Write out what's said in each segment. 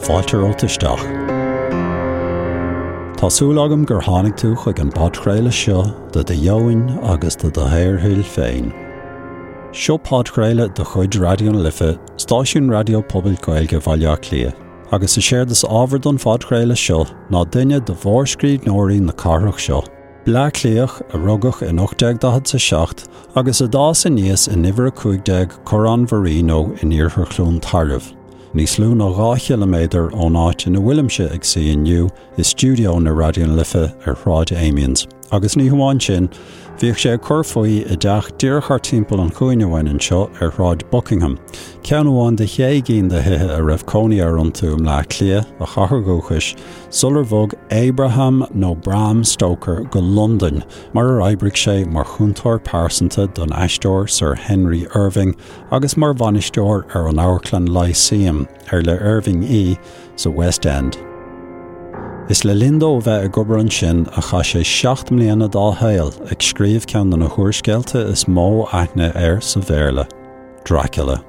Fáilte romhat isteach. Tá súil agam gur tháinig tú chuig an bpodchraoladh seo do do dheoin agus do do shaorthoil féin. Seo podchraoladh de chuid Raidió na Life, stáisiún raidió pobail Gaeilge Bhaile Átha Cliath, agus is éard is ábhar don phodchraoladh seo ná duine de mhórscríbhneoirí na cathrach seo, Bleá Cliathach a rugadh in 1847 agus a d'fhás aníos in uimhir 15 Corrán Mharino in iarthar Chluain Tairbh, níos lú ná 2 chiliméadar ón áit ina bhfuilimse ag suí inniu i stiúideo na Raidió na Life ar Shráid Amiens. Agus ní hamháin sin, bhíodh sé ag cur faoi i dteach díreach thart timpeall an chúinne uainn anseo ar Shráid Buckingham, ceann amháin de shé gcinn de thithe a raibh cónaí air iontu i mBleá Cliath, a chathair dhúchais, sular bhog Abraham nó Bram Stoker go Londain, mar ar oibrigh sé mar chúntóir pearsanta don aisteoir Sir Henry Irving agus mar bhainisteoir ar an amharclann Lyceum, ar le Irving í, sa West End. Is le linn dó a bheith ag obair ansin a chaith sé 7 mbliana dá shaol ag scríobh ceann de na húrscéalta is mó aithne air sa Bhéarla, Dracula.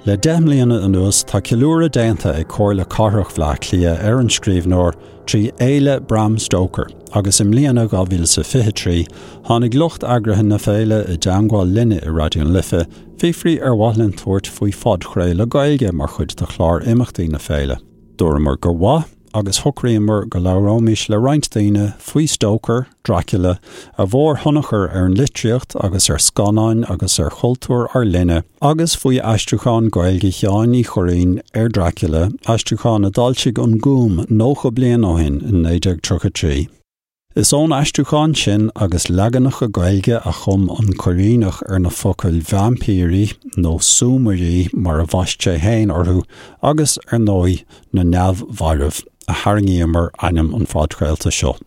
Le 10 mbliana anuas tá ceiliúradh déanta ag Comhairle Cathrach Bhaile Átha Cliath ar an scríbhneoir trí Fhéile Bram Stoker agus i mbliana, 2023, tháinig lucht eagraithe na féile i dteangmháil linne i Raidió na Life, fiafraí ar mhaith linn tabhairt faoi phodchraoladh Gaeilge mar chuid de chlár imeachtaí na féile. Dúramar gur mhaith agus shocraíomar go labhróimis le roinnt daoine faoi Stoker, Dracula, a mhórthionchar ar an litríocht agus ar scannáin agus ar chultúr ár linne, agus faoi aistriúchán Gaeilge Sheáin Uí Churraoin ar Dracula, aistriúchán a d'fhoilsigh An Gúm 90 bliain ó shin in 1933. Is ón aistriúchán sin agus leaganacha Gaeilge a chum an Cuirríneach ar na focail vaimpírí, nó súmairí mar a bhaist sé féin orthu, agus, ar ndóigh, na neamh-mhairbh, a tharraingíomar ainm an phodchraolta seo.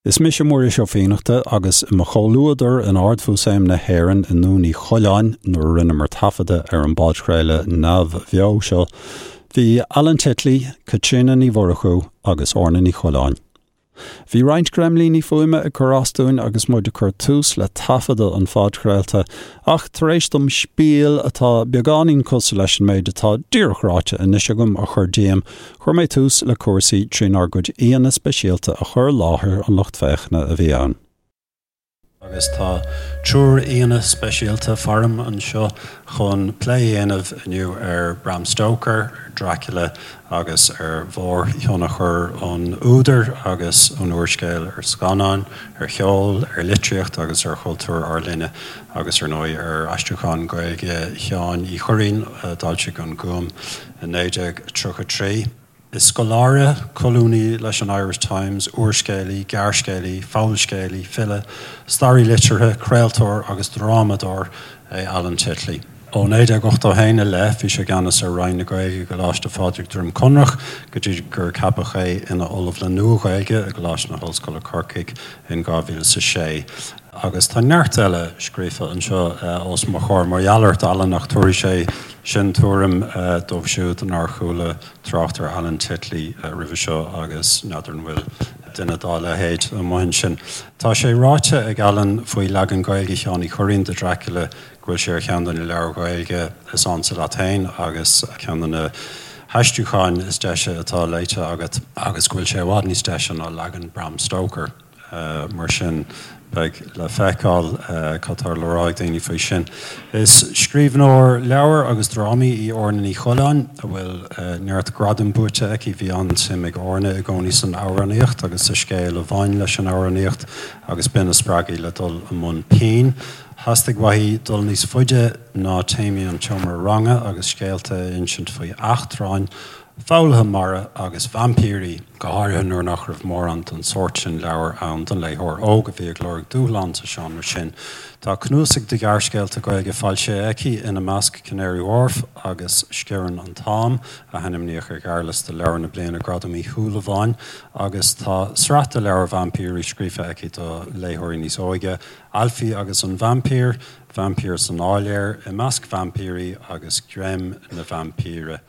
Is mise Muiris Ó Fiannachta agus i mo chomhluadar in Ard-Mhúsaem na hÉireann i nDún Uí Choileáin nuair a rinneamar taifeadadh ar an bpodchraoladh neamhbheo seo, Bhí Alan Titley, Caitríona Ní Mhurchú agus Orna Ní Choileáin. Bhí roinnt greimlíní fuaime ag cur as dúinn agus muid ag cur tús le taifeadadh an phodchraolta, ach tar éis dom spiel atá beagáinín cosúil leis an méid atá díreach ráite anois agam a chur díom, chuir mé tús le cúrsaí trínár gcuid aíonna speisialta a chur i láthair an lucht féachana a bhí ann. Agus tá triúr aíonna speisialta faram anseo chun plé a dhéanamh inniu ar Bram Stoker, ar Dracula agus ar mhórthionchar an údair agus an úrscéil ar scannáin, ar cheol, ar litríocht agus ar chultúr ár linne agus ar ndóigh ar aistriúchán Gaeilge Sheáin Uí Churraoin a d'fhoilsigh An Gúm i 1933. Is scoláire, colúnaí leis an Irish Times, úrscéalaí, gearrscéalaí, fabhalscéalaí, file, staraí liteartha, craoltóir agus drámadóir é Alan Titley. Ó 1981 i leith bhí sé i gceannas ar Roinn na Gaeilge i gColáiste Phádraig Droim Conrach go dtí gur ceapadh é ina Ollamh le Nua-Ghaeilge i gColáiste na hOllscoile Corcaigh in 2006. Agus tá neart eile scríofa anseo os mo chomhair mar gheall ort, Alan, ach tabharfaidh sé sin tuairim dóibh siúd nár chuala trácht ar Alan Titley roimhe seo agus n'fheadar an bhfuil duine dá leithéid amuigh ansin. Tá sé ráite ag Alan faoi leagan Gaeilge Sheáin Uí Churraoin de Dracula go bhfuil sé ar cheann de na leabhair Ghaeilge is ansa leat féin agus ceann de na haistriúcháin is deise atá léite agat agus go bhfuil sé i bhfad níos deise ná leagan Bram Stoker. Mar sin, beidh le feiceáil cad tá le rá ag daoine faoi sin. Is scríbhneoir leabhar agus drámaí í Orna Ní Choileáin, a bhfuil neart gradam buaite aici. Bhí an-suim ag Orna i gcónaí san amhránaíocht agus sa scéal a bhain leis an amhránaíocht agus b'in a spreag í le dul i mbun pinn. Theastaigh uaithi dul níos faide ná téamaí an tseomra ranga agus scéalta a insint faoi eachtráin, foghlaithe mara agus vaimpírí, go háirithe nuair nach raibh mórán den sórt sin leabhar ann don léitheoir óg a bhí ag lorg dúshlán sa seánra sin. Tá cnuasaigh de ghearrscéalta Gaeilge foilsithe aici, ina measc Canary Wharf agus Sciorrann an tAm, a hainmníodh ar ghearrliosta Leabhar na Bliana Gradam Uí Shúilleabháin, agus tá sraith de leabhair vaimpírí scríofa aici do léitheoirí níos óige, Ailfí agus an Vaimpír, Vaimpír san Áiléar, I Measc Vaimpírí agus Greim na Vaimpíre.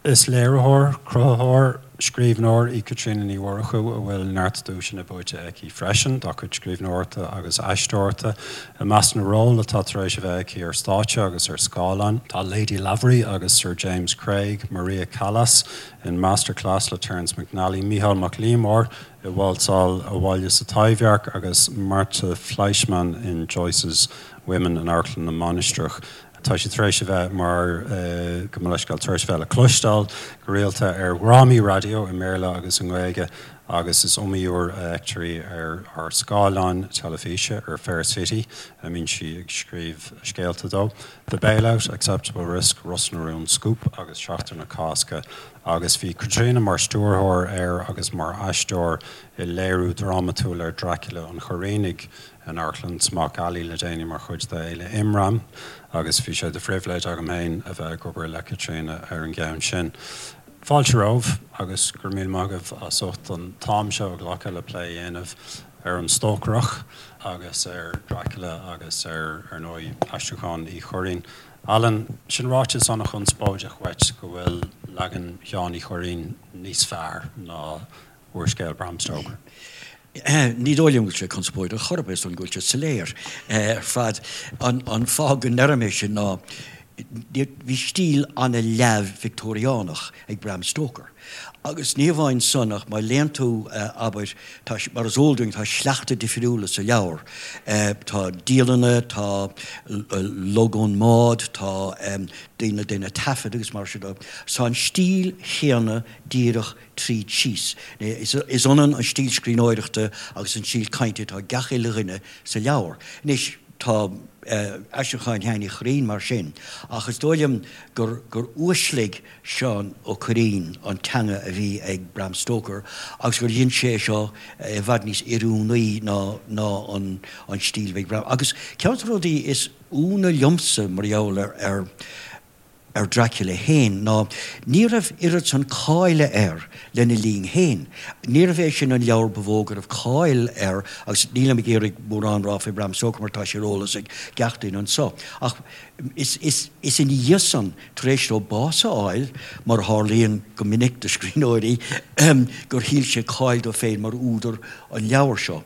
Is léiritheoir, cruthaitheoir, scríbhneoir í Caitríona Ní Mhurchú a bhfuil neart duaiseanna buaite aici freisin dá cuid scríbhneoireachta agus aisteoireachta. I measc na ról atá tar éis a bheith aici ar stáitse agus ar scáileán tá Lady Lavery agus Sir James Craig, Maria Callas in Masterclass le Terence McNally, Mícheál Mac Liammóir i Válsáil Abhaile sa Taibhdhearc agus Marta Fleischmann in Joyce's Women in Amharclann na Mainistreach. Tá sí tar éis a bheith mar, gabh mo leithscéal, tar éis a bheith le cloisteáil go rialta ar dhrámaí raidió i mBéarla agus i nGaeilge agus is iomaí uair a fheictear í ar ár scáileáin teilifíse, ar Fair City, a mbíonn sí ag scríobh scéalta dó, The Bailout, Acceptable Risk, Ros na Rún, Scúp agus Seachtain na Cásca agus bhí Caitríona mar stiúrthóir ar agus mar aisteoir i léiriú drámatúil ar Dracula an Churraoinigh in Amharclann Smock Alley le déanaí mar chuid de Fhéile Imram agus bhí sé de phribhléid agam féin a bheith ag obair le Caitríona ar an gceann sin. Fáilte romhaibh agus go raibh míle maith agaibh as ucht an t-am seo a ghlacadh le plé a dhéanamh ar an Stócaireach agus ar Dracula agus ar, ar ndóigh, aistriúchán Uí Churraoin. Alan, sin ráiteas an-chonspóideach uait go bhfuil leagan Sheáin Uí Churraoin níos fearr ná úrscéal Bram Stoker. Ní dóigh liom go bhfuil sé conspóideach chor ar bith, is dóigh liom go bhfuil sé soiléir ar fad. An fáth go ndeirim é sin ná bhí stíl an-leamh Victeoiriánach ag Bram Stoker. Agus ní hamháin san ach má léann tú, abair, tá, mar is eol dúinn, tá sleachta difriúla sa leabhar. Tá dialanna, tá log ón mbád, tá daoine ag déanamh taifead agus mar sin de. Tá an stíl chéanna díreach tríd síos. Is ionann an stíl scríbhneoireachta agus an stíl cainte atá ag gach uile dhuine sa leabhar. Anois, tá aistriúchán Sheáin Uí Churraoin mar sin, ach is dóigh liom gur gur uaisligh Seán Ó Cuirreáin an teanga a bhí ag Bram Stoker agus gur dhein sé é seo i bhfad níos oiriúnaí ná ná an an stíl a bhí ag Bram. Agus ceann de na rudaí is ionadh liomsa mar gheall ar ar ar Dracula féin ná ní raibh oiread san cáile air lena linn féin. Níorbh é sin an leabhar ba mhó go raibh cáil air agus nílim ag iarraidh mórán rá faoi Bram Stoker mar tá sé ar eolas ag gach duine anso. Ach is, is, is ina dhiaidh san, tar éis dó bás a fháil, mar a tharlaíonn go minic do scríbhneoirí, gur thuill sé cáil dó féin mar údar an leabhair seo.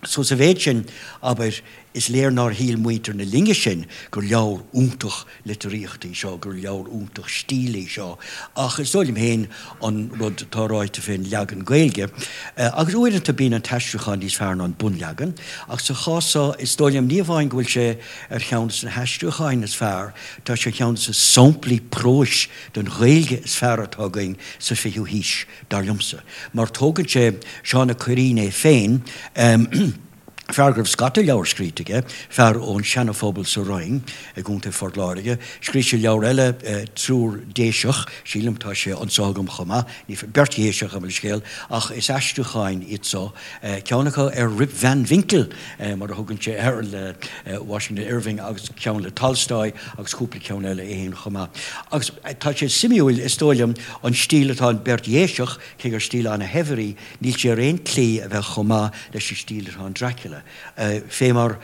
So sa mhéid sin, abair, is léir nár shíl muintir na linne sin gur leabhar iontach litríochta í seo, gur leabhar iontach stíle í seo, ach is dóigh liom féin an rud atá ráite fén leagan Gaeilge, agus uaireanta bíonn an t-aistriúchán níos fearr ná an bunleagan, ach sa chás seo is dóigh liom ní amháin go bhfuil sé ar cheann de na haistriúcháin is fearr, tá sé ar cheann de na samplaí próis den Ghaeilge is fearr atá againn sa fichiú haois. dar liomsa, mar tógann sé Seán Ó Cuirreáin é féin, fear go raibh scata leabhar scríte aige, fear ón Seana-Phobal sa Rinn i gContae Phort Láirge. Scríobh sé leabhar eile, Triúr Déiseach, sílim, tá sé anso agam chomh maith, ní, beirt Dhéiseach, gabh mo leithscéal, ach is aistriúcháin iad so, ceann acu ar Rip Van Winkle, mar a thugann sé air, le Washington Irving agus ceann le Tolstoy agus cúpla ceann eile é féin chomh maith. Agus tá sé suimiúil, is dóigh liom, an stíl atá in Beirt Dhéiseach, cé gur stíl ana-shaibhir í, níl sé ar aon tslí a bheith chomh maith leis an stíl atá in Dracula, fé mar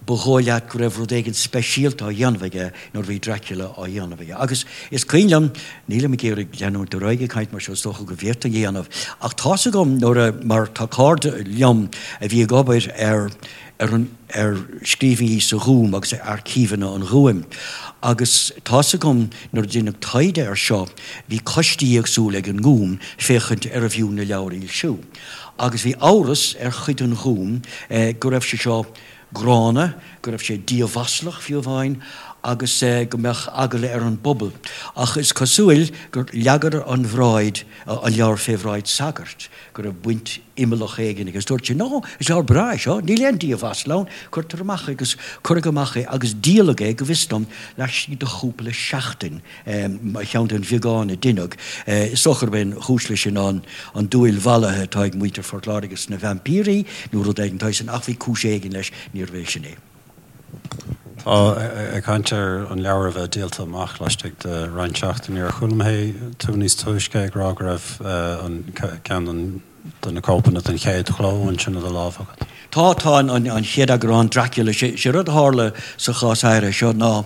ba dhóigh leat go raibh rud éigin speisialta á dhéanamh aige nuair a bhí Dracula á dhéanamh aige. Agus is cuimhin liom, nílim ag iarraidh leanúint ar aghaidh ag caint mar seo, is dócha go bhféadfainn a dhéanamh, ach tá's agam nuair a, mar tá cairde liom a bhí ag obair ar, ar an, ar scríbhinní sa Ghúm agus ar aircíveanna an Ghúim. Agus tá's agam nuair a deineadh taighde air seo, bhí coistí éagsúla ag an nGúm féachaint arbh fhiú na leabhair a fhoilsiú. Agus bhí amhras ar chuid den Ghúm go raibh sé seo gránna, go raibh sé diamhaslach fiú amháin, agus go mbeadh eagla ar an bpobal. Ach is cosúil gur leagadar an bhráid, an leabhar fé bhráid sagairt, go raibh baint imeallach éigin aige. Agus dúirt sé, No, is leabhar breá é seo, níl aon diamhasla ann, cuirtear amach é agus cuireadh amach é agus díoladh é, go bhfios dom, laistigh de chúpla seachtain, mar cheann den bheagán a deineadh. Is dócha gurb é an chúis leis sin ná an dúil mhallaithe atá ag muintir Phort Láirge sna vaimpírí nó rud éigin de shaghas sin, ach bhí cúis éigin leis, níorbh é sin é. Tá, ag caint ar an leabhar a bheith díolta amach laistigh de roinnt seachtainí, ar chuala mé tú níos túisce ag rá go raibh an ceann de na cóipeanna den chéad chló ansin i do lámh agat? Tá, tá an chéad eagrán, Dracula, sé rud a tharla sa chás áirithe seo ná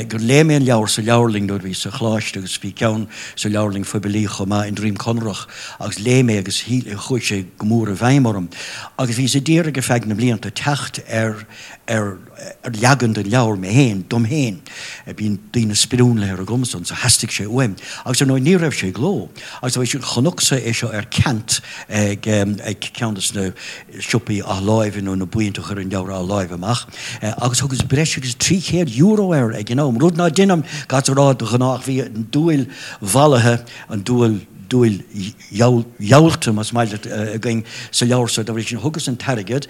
gur léigh mé an leabhar sa leabharlainn nuair a bhíos sa choláiste agus bhí ceann sa leabharlainn phoiblí chomh maith i nDroim Conrach agus léigh mé agus chuaigh sé go mór i bhfeidhm orm agus bhíos ag iarraidh ar feadh na mblianta teacht ar ar ar leagan den leabhar mé féin, dom féin. Bíonn daoine sprionlaithe agamsa so theastaigh sé uaim. Agus ar ndóigh ní raibh sé i gcló. Agus bhí sin, chonacsa é seo ar ceant ag ag ceann de na siopaí athláimhe nó na buíonta a chuireann leabhair athláimhe amach agus thugas breis agus €300 air ag an am, rud ná deinim caithfidh a rá de ghnáth ach bhí an dúil mhallaithe, an dúil, dúil gheallta más maith leat againn sa leabhar so dá bhrí sin thugas an t-airgead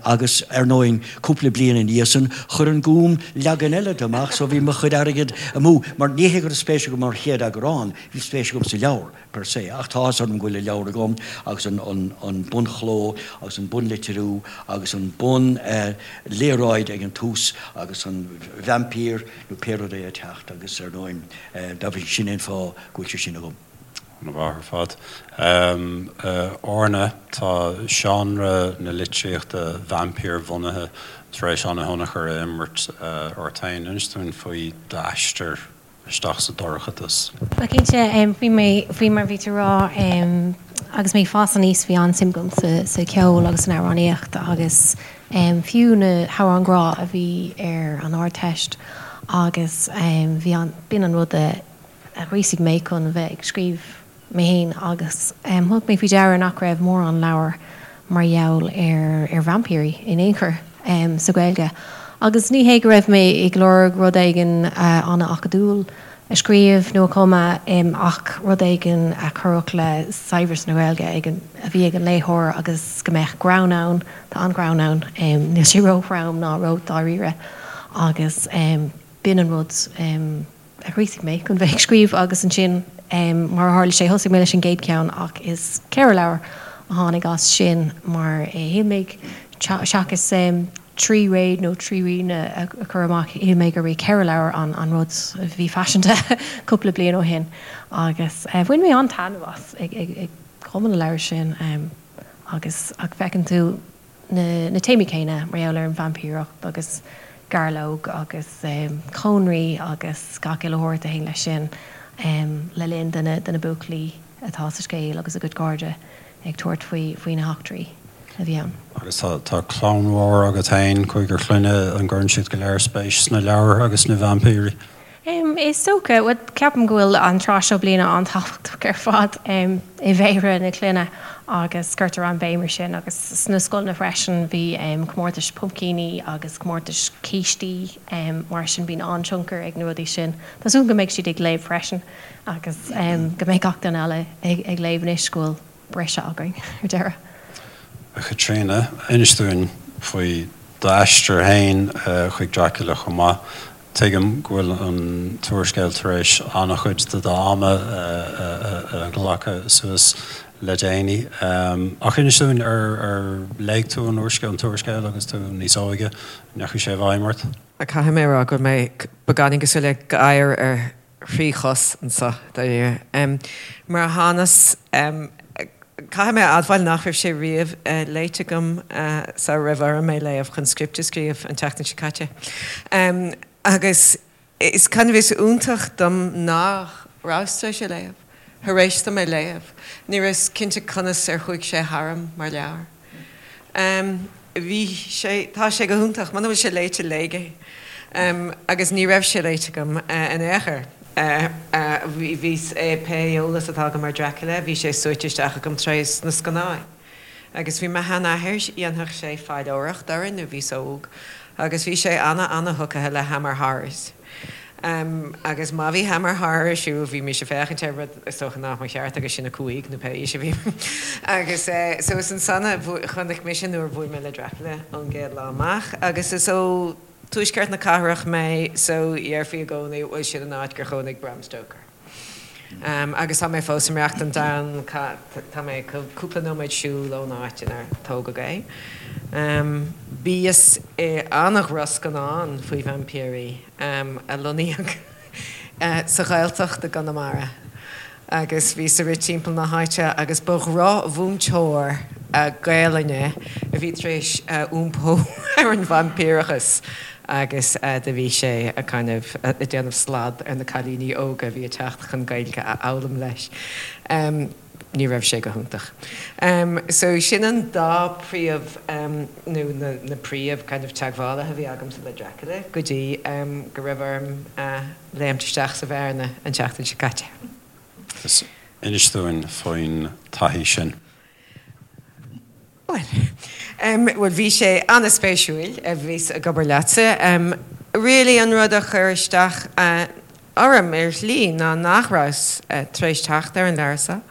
agus ar ndóigh cúpla bliain ina dhiaidh san chuir an Gúm leagan eile de amach so bhí mo chuid airgid amú mar ní hé go raibh spéis agam mar chéad eagrán, bhí spéis agam sa leabhar per se ach tá áthas orm go bhfuil an leabhar agam agus an bunchló agus an bunlitriú agus an bun léaráid ag an tús agus an vaimpír nó pé rud é ag teacht agus ar ndóigh dá bhrí sin é an fáth go bhfuil sé sin agam. An-mhaith ar fad. Orna, tá seánra na litríochta vaimpír-bhunaithe tar éis an-thionchar a imirt ort féin. Inis dúinn faoi d'aistear isteach sa dorchadas. Bhuel, cinnte, faoi mé, faoi mar a bhí tú a rá, agus mé ag fás aníos bhí an-suim agam sa cheol agus san amhránaíocht agus fiú na hamhráin ghrá a bhí ar an Ardteist agus bhí an, b'in an rud a ghríosaigh mé chun bheith ag scríobh mé fhéin agus thug mé faoi deara nach raibh mórán leabhar mar gheall ar ar vaimpírí in aon chor sa Ghaeilge. Agus ní hé go raibh mé ag lorg rud éigin an-acadúil a scríobh nó a chumadh ach rud éigin a chuirfeadh le saibhreas na Gaeilge ag an, a bhí ag an léitheoir agus go mbeadh greann ann, tá an-ghreann ann, níl sé ró-throm ná ró-dháiríre agus b'in an rud a ghríosaigh mé chun bheith ag scríobh agus ansin mar a tharla sé thosaigh mé leis an gcéad cheann ach is 4 leabhar a tháinig as sin mar shíl mé seachas 3 réad nó 3 ríon a chur amach shíl mé gurb é 4 leabhar an rud a bhí faiseanta cúpla bliain ó shin agus bhain mé an-taitneamh as ag cumadh na leabhar sin agus ach feiceann tú na téamaí céanna mar gheall ar an vaimpíreacht agus gairleog agus cónraí agus gach uile shórt a théann leis sin le linn do na buachaillí atá sa scéal agus a gcuid cairde ag tabhairt faoi na heachtraí a bhí ann. Agus tá clann mhór agat féin, cúigear clainne, an gcuireann siad go léir spéis sna leabhair agus sna vaimpírí? Is dócha. Bhuel, ceapaim go bhfuil an tráth seo bliana an-tábhachtach ar fad i bhféilire na clainne agus cuirtear an-bhéim ar sin agus sna scoileanna freisin bhí comórtais puimcíní agus comórtais cístí mar sin bíonn an-tionchar ag na rudaí sin. Tá súil go mbeidh siad ag léamh freisin agus go mbeidh gach duine eile ag léamh anois go bhfuil briseadh againn ar deireadh. A Chaitríona, inis dúinn faoi d'aistear féin chuig Dracula chomh maith. Tuigim go bhfuil an t-úrscéal tar éis an-chuid de d'am a ghlacadh suas le déanaí. Ach inis dúinn, ar léigh tú an úrscéal, an t-úrscéal agus tú níos óige? An ndeachaigh sé i bhfeidhm ort? Caithfidh mé a rá go bhfuil mé beagáinín cosúil le gadhar ar thrí chos anseo, dáiríre. Mar a thánas, caithfidh mé a admháil nach raibh sé riamh léite agam sara raibh orm é léamh chun script a scríobh an tseachtain seo caite. Agus is kind of is iontach dom nach rabhas tar éis é léamh, thar éis dom é léamh. Ní rabhas cinnte conas ar chuaigh sé tharam mar leabhar. Bhí sé, tá sé go hiontach. Muna bhfuil sé léite, léigh é. Agus ní raibh sé léite agam in aon chor. Bhí, pé eolas atá agam ar Dracula, bhí sé súite isteach agam trés na scannáin. Agus bhí mo sheanathair, dhéanfadh sé faidhleoireacht orainn nuair bhíos óg, agus bhí sé ana-ana-thugtha le Hammer Horrors. Agus má bhí Hammer Horror ar siúl, bhímis ag féachaint air, rud is dócha nach mba cheart agus sinn 5 nó pé aois a bhí. Agus so is ansan a chonaic mise nuair a bhuail mé le Dracula ón gcéad lá amach. Agus is ó tuaisceart na cathrach mé so dhéarfaí i gcónaí, bhuel sin an áit gur chónaigh Bram Stoker. Agus tá mé fós ag maireachtaint ann, tá mé cúpla nóiméad siúil ón áit inar tógadh é. Bhíos i an-dhrochscannán faoi vaimpírí a lonnaíodh sa Ghaeltacht i gConamara agus bhíos ag rith timpeall na háite agus ba dhrochmhúinteoir Gaelainne. a bhí tar éis iompó ar an vaimpíreachas agus do bhí sé a kind of ag déanamh slad ar na cailíní óga a bhí ag teacht chun Gaeilge a fhoghlaim leis. Ní raibh sé go hiontach. So sin an dá príomh nó na príomh kind of teagmhálaithe a bhí agamsa le Dracula go dtí go raibh orm léimt isteach sa bhearna an tseachtain seo caite. Agus inis dúinn faoin taithí sin. Bhuel, bhuel bhí sé an-spéisiúil, bhíos ag obair leatsa. Really an rud a chuir isteach orm ar shlí ná nach rabhas tar éis teacht ar an leabhar seo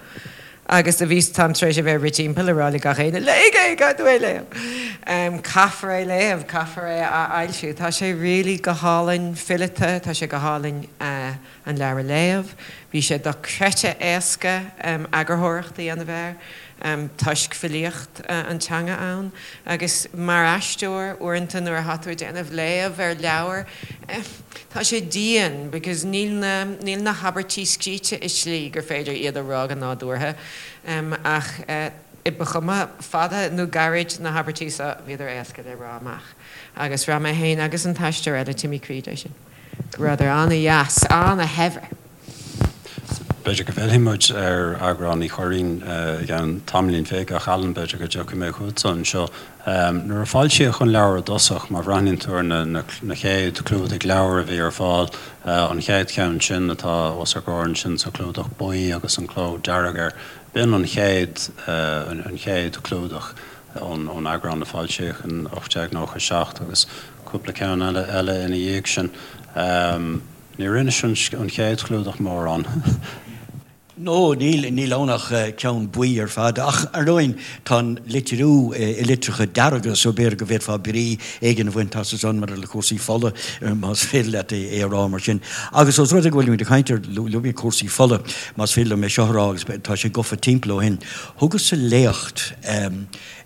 agus do bhíos, táim tar éis a bheith ag rith timpeall ag rá le gach éinne, léigh é, caithfidh tú é a léamh. Caithfear é a léamh, caithfear é a fhoilsiú. Tá sé really go hálainn fileata, tá sé go hálainn an leabhar a léamh. Bhí sé dochreidte éasca eagarthóireacht a dhéanamh air toisc filíocht an teanga ann. Agus mar aisteoir, uaireanta nuair atá tú ag déanamh léamh ar leabhar, tá sé dian because níl na, níl na habairtí scríte i slí gur féidir iad a rá go nádúrtha. Ach ba chuma fada nó gairid na habairtí seo, bhíodar éasca le rá amach. Agus bhraith mé féin agus an t-aisteoir eile, Timmy Creed, é sin. Go rabhadar an-dheas, an-shaibhir. B'fhéidir go bhfillfidh muid ar eagrán Uí Churraoin i gceann tamaillín bhig, ach Alan, b'fhéidir go dtiocfaidh mé chugatsa anseo. Nuair a foilsíodh an leabhar i dtosach, má bhreathnaíonn tú ar na chéad chlúdaigh leabhar a bhí ar fáil, an chéad cheann sin atá os ár gcomhair ansin sa chlúdach buí agus an cló dearg air, b'in an chéad, an chéad chlúdach ón eagrán a foilsíodh in 1897 agus cúpla ceann eile eile ina dhiaidh sin. Níor inis an chéad chlúdach mórán. No, níl, níl ann ach ceann buí ar fad. Ach, ar ndóigh, tá an litriú i litreacha dearga so b'fhéidir go bhféadfá brí éigin a bhaint as ansan maidir le cúrsaí fola, más féidir leat é a rá mar sin. Agus os rud é go bhfuilimid ag caint ar, luaigh mé cúrsaí fola, más féidir liom é seo a rá agus tá sé gafa timpeall ó shin. Thugas-sa léacht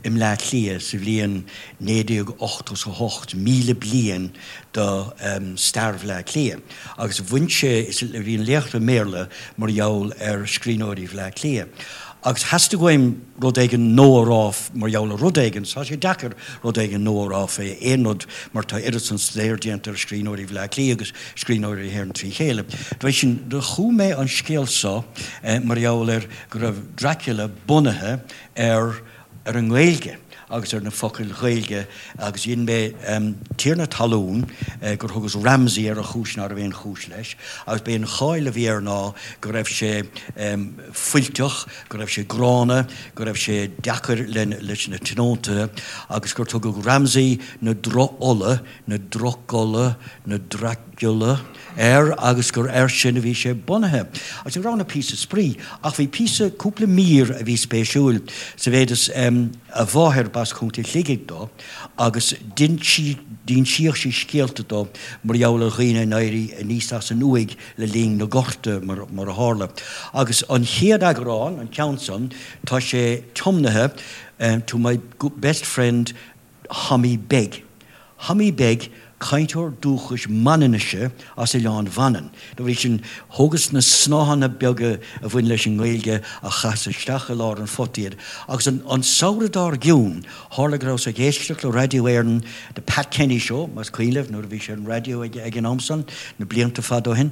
i mBleá Cliath sa bhliain 1988, 1000 bliain do stair Bhleá Cliath, agus bhain sé, bhí an léacht i mBéarla mar gheall ar scríbhneoirí Bhleá Cliath. Agus theastaigh uaim rud éigin nua a rá mar gheall ar rud éigin, tá sé deacair rud éigin nua a rá fé aon rud mar tá oiread san staidéir déanta ar scríbhneoirí Bhleá Cliath agus scríbhneoirí na hÉireann trí chéile. Dá bhrí sin, do chum mé an scéal so mar gheall ar go raibh Dracula bunaithe ar ar an nGaeilge agus ar na focail Ghaeilge agus dhein mé tiarna talún gur thugas Ramsay air ar chúis ná raibh aon chúis leis agus b'é an cháil a bhí air ná go raibh sé fuilteach, go raibh sé gránna, go raibh sé deacair leis na tionóntaithe agus gur tugadh Ramsay na droch-fhola, na Drocula, na Dracula, air agus gur air sin a bhí sé bunaithe. Agus ní raibh ann ach píosa spraoi, ach bhí píosa, cúpla mír a bhí spéisiúil, sa mhéid is a mháthair, b'as Contae Shligigh dó, agus d'insíodh sí scéalta dó mar gheall ar dhaoine in éirí aníos as an uaigh le linn na gorta, mar a tharla. Agus an chéad eagrán, an ceann san, tá sé tiomnaithe to my best friend Thommy Beag. Thommy Beag, cainteoir dúchais Manainnise as Oileán Mhanann. Dá bhrí sin, thógas na snáthanna beaga a bhain leis an nGaeilge a chaitheas isteach i lár an phota iad. Agus an samhradh dár gcionn, tharla go rabhas ag éisteacht le Raidió Éireann, The Pat Kenny Show, más cuimhin libh, nuair a bhí sé ar an raidió ag an am san, na blianta fada ó shin.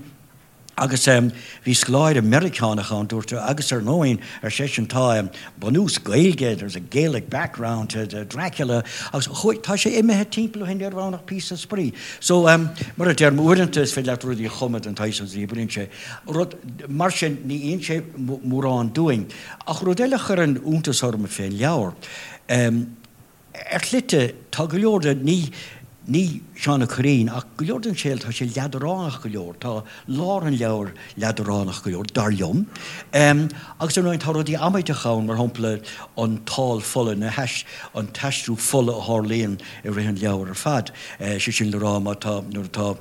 Agus bhí scoláire Meiriceánach ann, dúirt, agus ar ndóigh, ar seisean, tá bunús Gaeilge, there's a Gaelic background to Dracula, agus chuaigh, tá sé imithe timpeall ó shin, ní raibh ann ach píosa spraoi. So, mar a deirim, uaireanta is féidir leat rudaí a chumadh den tsaghas agus ní oibríonn sé. Rud mar sin, ní insíonn sé mórán dúinn. Ach rud eile a chuireann iontas orm fén leabhar, Ar shlite, tá go leor de, ní, ní Seán Ó Cuirreáin, ach go leor den scéal, tá sé leadránach go leor, tá lár an leabhair leadránach go leor, dar liom. Agus ar ndóigh tá rudaí amaideacha ann, mar shampla an tál fola, na hais, an t-aistriú fola a tharlaíonn i rith an leabhair ar fad. Sé sin le rá, má tá, nuair atá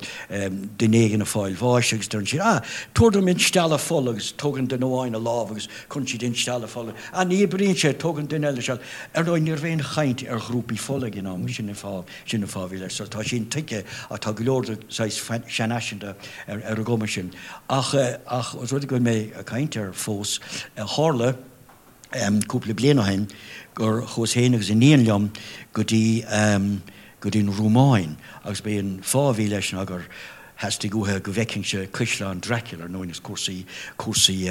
duine éigin ag fáil bháis agus deireann siad, ah, tabhair dom instealladh fola agus tógann duine amháin a lámh agus cuireann siad instealladh fola, ah, ní oibríonn sé, tógann duine eile seal. Ar ndóigh, ní raibh aon chaint ar ghrúpaí fola ag an am, sin an fáth, sin an fáth a bhí leis. So tá sé intuigthe ach tá go leor de saghas seanfhaiseanta ar an gcuma sin. Ach, ach os rud é go bhfuil mé ag caint air fós, tharla. Cúpla bliain ó shin gur chuas féin agus iníon liom go dtí go dtí an Rúmáin agus b'é an fáth a bhí leis ná gur theastaigh uaithi go bhfeicfinnse Caisleán Dracula, ar ndóigh is cúrsaí cúrsaí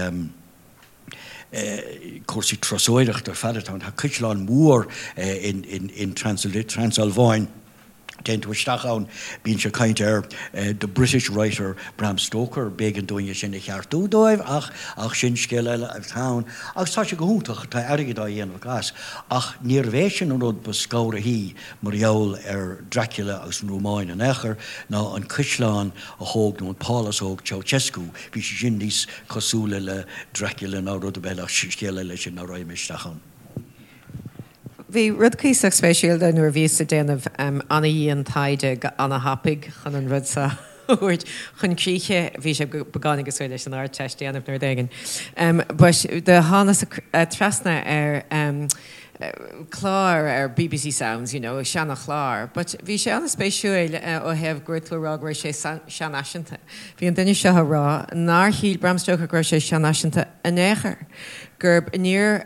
cúrsaí turasóireachta ar fad atá ann. Tá caisleán mór in in in Transalváin. Téann tú isteach ann, bíonn sé ag caint ar the British writer Bram Stoker, b'éigean dúinn é sin a cheartú dóibh ach ach sin scéal eile atá ann. Agus tá sé go hiontach, tá airgead á dhéanamh acu as. Ach níorbh é sin an rud ba scanraithí mar gheall ar Dracula agus an Rúmáin in aon chor ná an caisleán a thóg nó an pálás a thóg Ceausescu, bhí sé sin níos cosúla le Dracula ná rud ar bith eile ach scéal eile é sin ná raghaidh mé isteach ann. Bhí rud cuíosach spéisiúil dó nuair a bhíos ag déanamh ana-dhian taighde go ana-thapaidh chun an rud seo a thabhairt chun críche. Bhí sé beagáinín cosúil leis an Ardteist déanamh nó rud éigin. But do thánas trasna ar chlár ar bbc Sounds, you know, seana-chlár. But bhí sé ana-spéisiúil ó thaobh go raibh tú ag rá go raibh sé seanfhaiseanta. Bhí an duine seo ag rá nár shíl Bram Stoker go raibh sé seanfhaiseanta in aon chor. gurb níor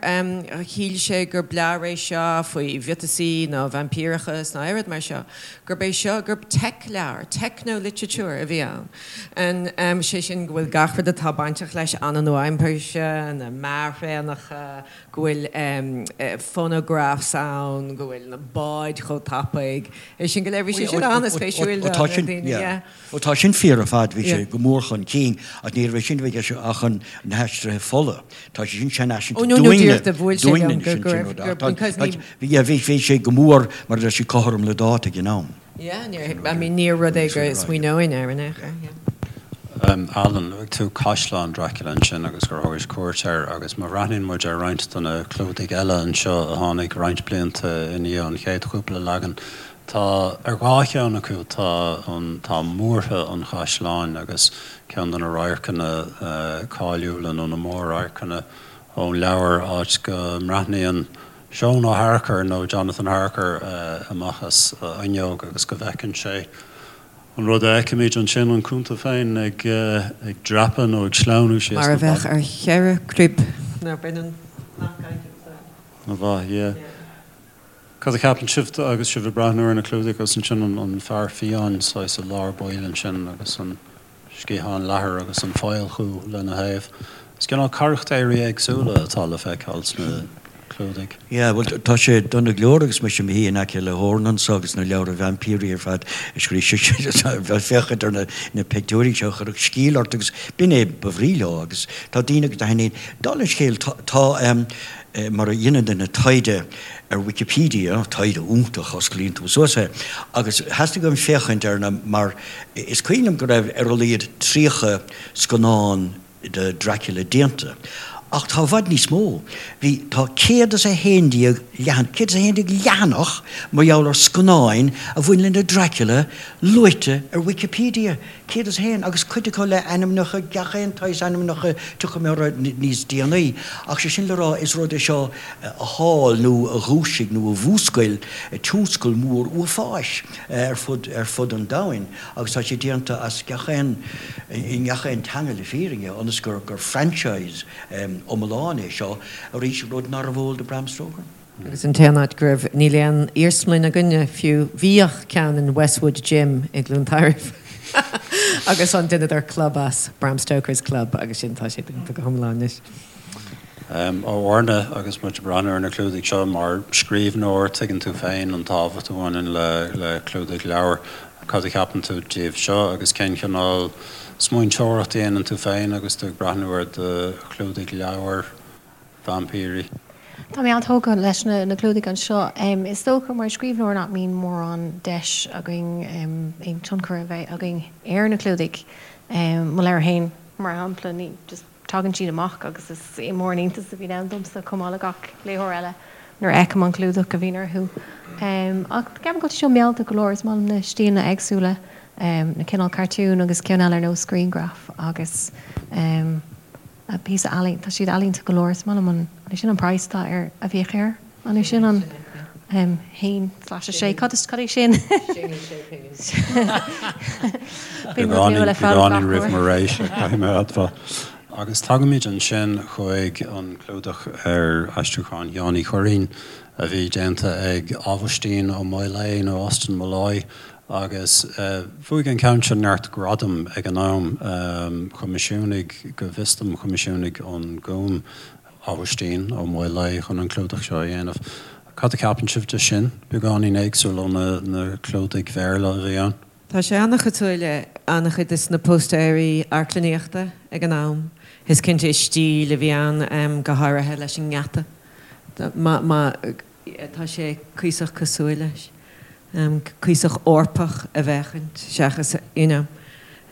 shíl sé gur leabhar é seo faoi mhiotasaí ná vaimpíreachas ná aon rud mar seo, gurb é seo, gurb teic-leabhar, techno-literature a bhí ann. And sé sin go bhfuil gach rud atá bainteach leis an-nua-aimseartha, na mearthraenacha, go bhfuil phonographs ann, go bhfuil na báid chomh tapaidh, é sin go léir. Bhí sé sin an-spéisiúil do na daoine, yeah. Ó tá sin fíor ar fad, bhí sé go mór chun cinn, ach ní raibh sé sin a bheith i gceist ach chun na haistrithe fola. Tá sé sin seanfhaiseanta dúinne, dúinne anois an sin rud ach tá, bhí, bhí sé go mór mar a deir siad cothrom le dáta ag an am. Yeah, níor, I mean níor rud é go smaoineoinn air in aon chor, yeah. Alan, luaigh tú Caisleán Dracula ansin agus gur thugais cuairt air agus má bhreathnaíonn muid ar roinnt de na clúdaigh eile anseo a tháinig roinnt blianta i ndiaidh an chéad chúpla leagan, Tá, ar dhá cheann acu tá an, tá múrtha an chaisleáin agus ceann de na radharcanna cáiliúla nó na mór-radharcanna ón leabhar, áit go mbreathnaíonn Seon Ó Harchar nó Jonathan Harker amach as a fhuinneog agus go bhfeiceann sé an rud a fheicimid ansin, an cunta féin ag ag dreapadh nó ag sleamhnú síos Mar na a bheadh ballaí. ar cheithre chrib. Ná baineann nach gcaithfidh. An-mhaith, yeah. Cad a cheapann sibh agus sibh ag breathnú ar na clúdaigh agus ansin an fear fiáin saghas i lár baill ansin agus an sciathán leathair agus an faolchú lena thaobh. Is cineál carachtéirí éagsúla atá le feiceáil sna clúdaigh. Yeah, bhuel tá sé dona go leor agus mise i mo shuí in aice le hOran anseo agus na leabhra vaimpírí ar fad a scríobh sise ag féachaint ar na pictiúirí seo chuirfeadh sceall ort agus b'in é ba bhrí leo agus tá daoine agus a thaitníonn. Dála an scéil tá mar a dhéanann duine taighde ar Wikipedia, taighde iontach, osclaíonn tú suas é, agus theastaigh uaim féachaint ar na, mar is cuimhin liom go raibh ar a laghad 30 scannán de Dracula déanta, ach tá i bhfad níos mó. Bhí, tá 111 leathan, 111 leathanach mar gheall ar scannáin a bhain le Dracula luaite ar Wikipedia. 101, agus cuid acu le ainmneacha, gach aon tsaghas ainmneacha, tiocfaidh mé orthu níos déanaí, ach sé sin le rá, is rud é seo a thál nó a dhúisigh nó a mhúscail tionscal mór uafáis ar fud, ar fud an domhain agus tá sé déanta as gach aon, i ngach aon teanga le fírinne, ionas gur, gur franchise iomlán é seo, arís, rud nárbh eol do Bram Stoker. Agus an t-aon áit go raibh, níl aon iarsmalann againne fiú, bhíodh ceann in Westwood Gym i gCluain Tairbh agus an dheineadar club as, Bram Stoker's Club, agus sin, tá sé dúnta go hiomlán anois. A Mharna, agus muid ag breathnú ar na clúdaigh seo, mar scríbhneoir, tuigeann tú féin an tábhacht a bhaineann le clúdaigh leabhar. Cad a cheapann tú díobh seo agus cén chineál smaointeoireacht a dhéanann tú féin agus tú ag breathnú ar do chlúdaigh leabhar? vaimpírí. Tá mé an-tógtha leis na clúdaigh anseo. Is dócha mar scríbhneoir nach mbíonn mórán deis againn aon tionchar a bheith againn ar na clúdaigh. Mo leabhar féin, mar shampla, ní just tagann siad amach agus is mór an iontas a bhíonn ann domsa chomh maith le gach léitheoir eile nuair a fheicim an clúdach a bhíonn orthu. Ach ceapaim go bhfuil sé seo mealltach go leor, is maith liom na stíleanna éagsúla, na cineál cartún agus ceann eile ar nós grianghraf agus. píosa ealaín, tá siad ealaíonta go leor, is maith liom an, an é sin an praghas atá ar, a bhíodh air? An é sin an 1/6, cad is, cad é sin? Sin sé pingin. Beagáinín roimh mo ré-sa, caithfidh mé a admháil. Agus tagaimid ansin chuig an clúdach ar aistriúchán Sheáin Uí Churraoin a bhí déanta ag Aibhistín Ó Maolaodha nó Austin Molloy agus bhuaigh an ceann seo neart gradam ag an am. Choimisiúnaigh, go bhfios dom, choimisiúnaigh an Gúm Aibhistín Ó Maolaodha chun an clúdach seo a dhéanamh. Cad a cheapann sibh de sin? Beagáinín éagsúil ó na clúdaigh Bhéarla a bhí ann. Tá sé an-chosúil le an-chuid de na póstaeirí amharclannaíochta ag an am. Is cinnte is stíl a bhí ann, go háirithe leis an ngeata. Má tá sé cuíosach cosúil leis. Cuíosach Eorpach a bhféachaint seachas, you know.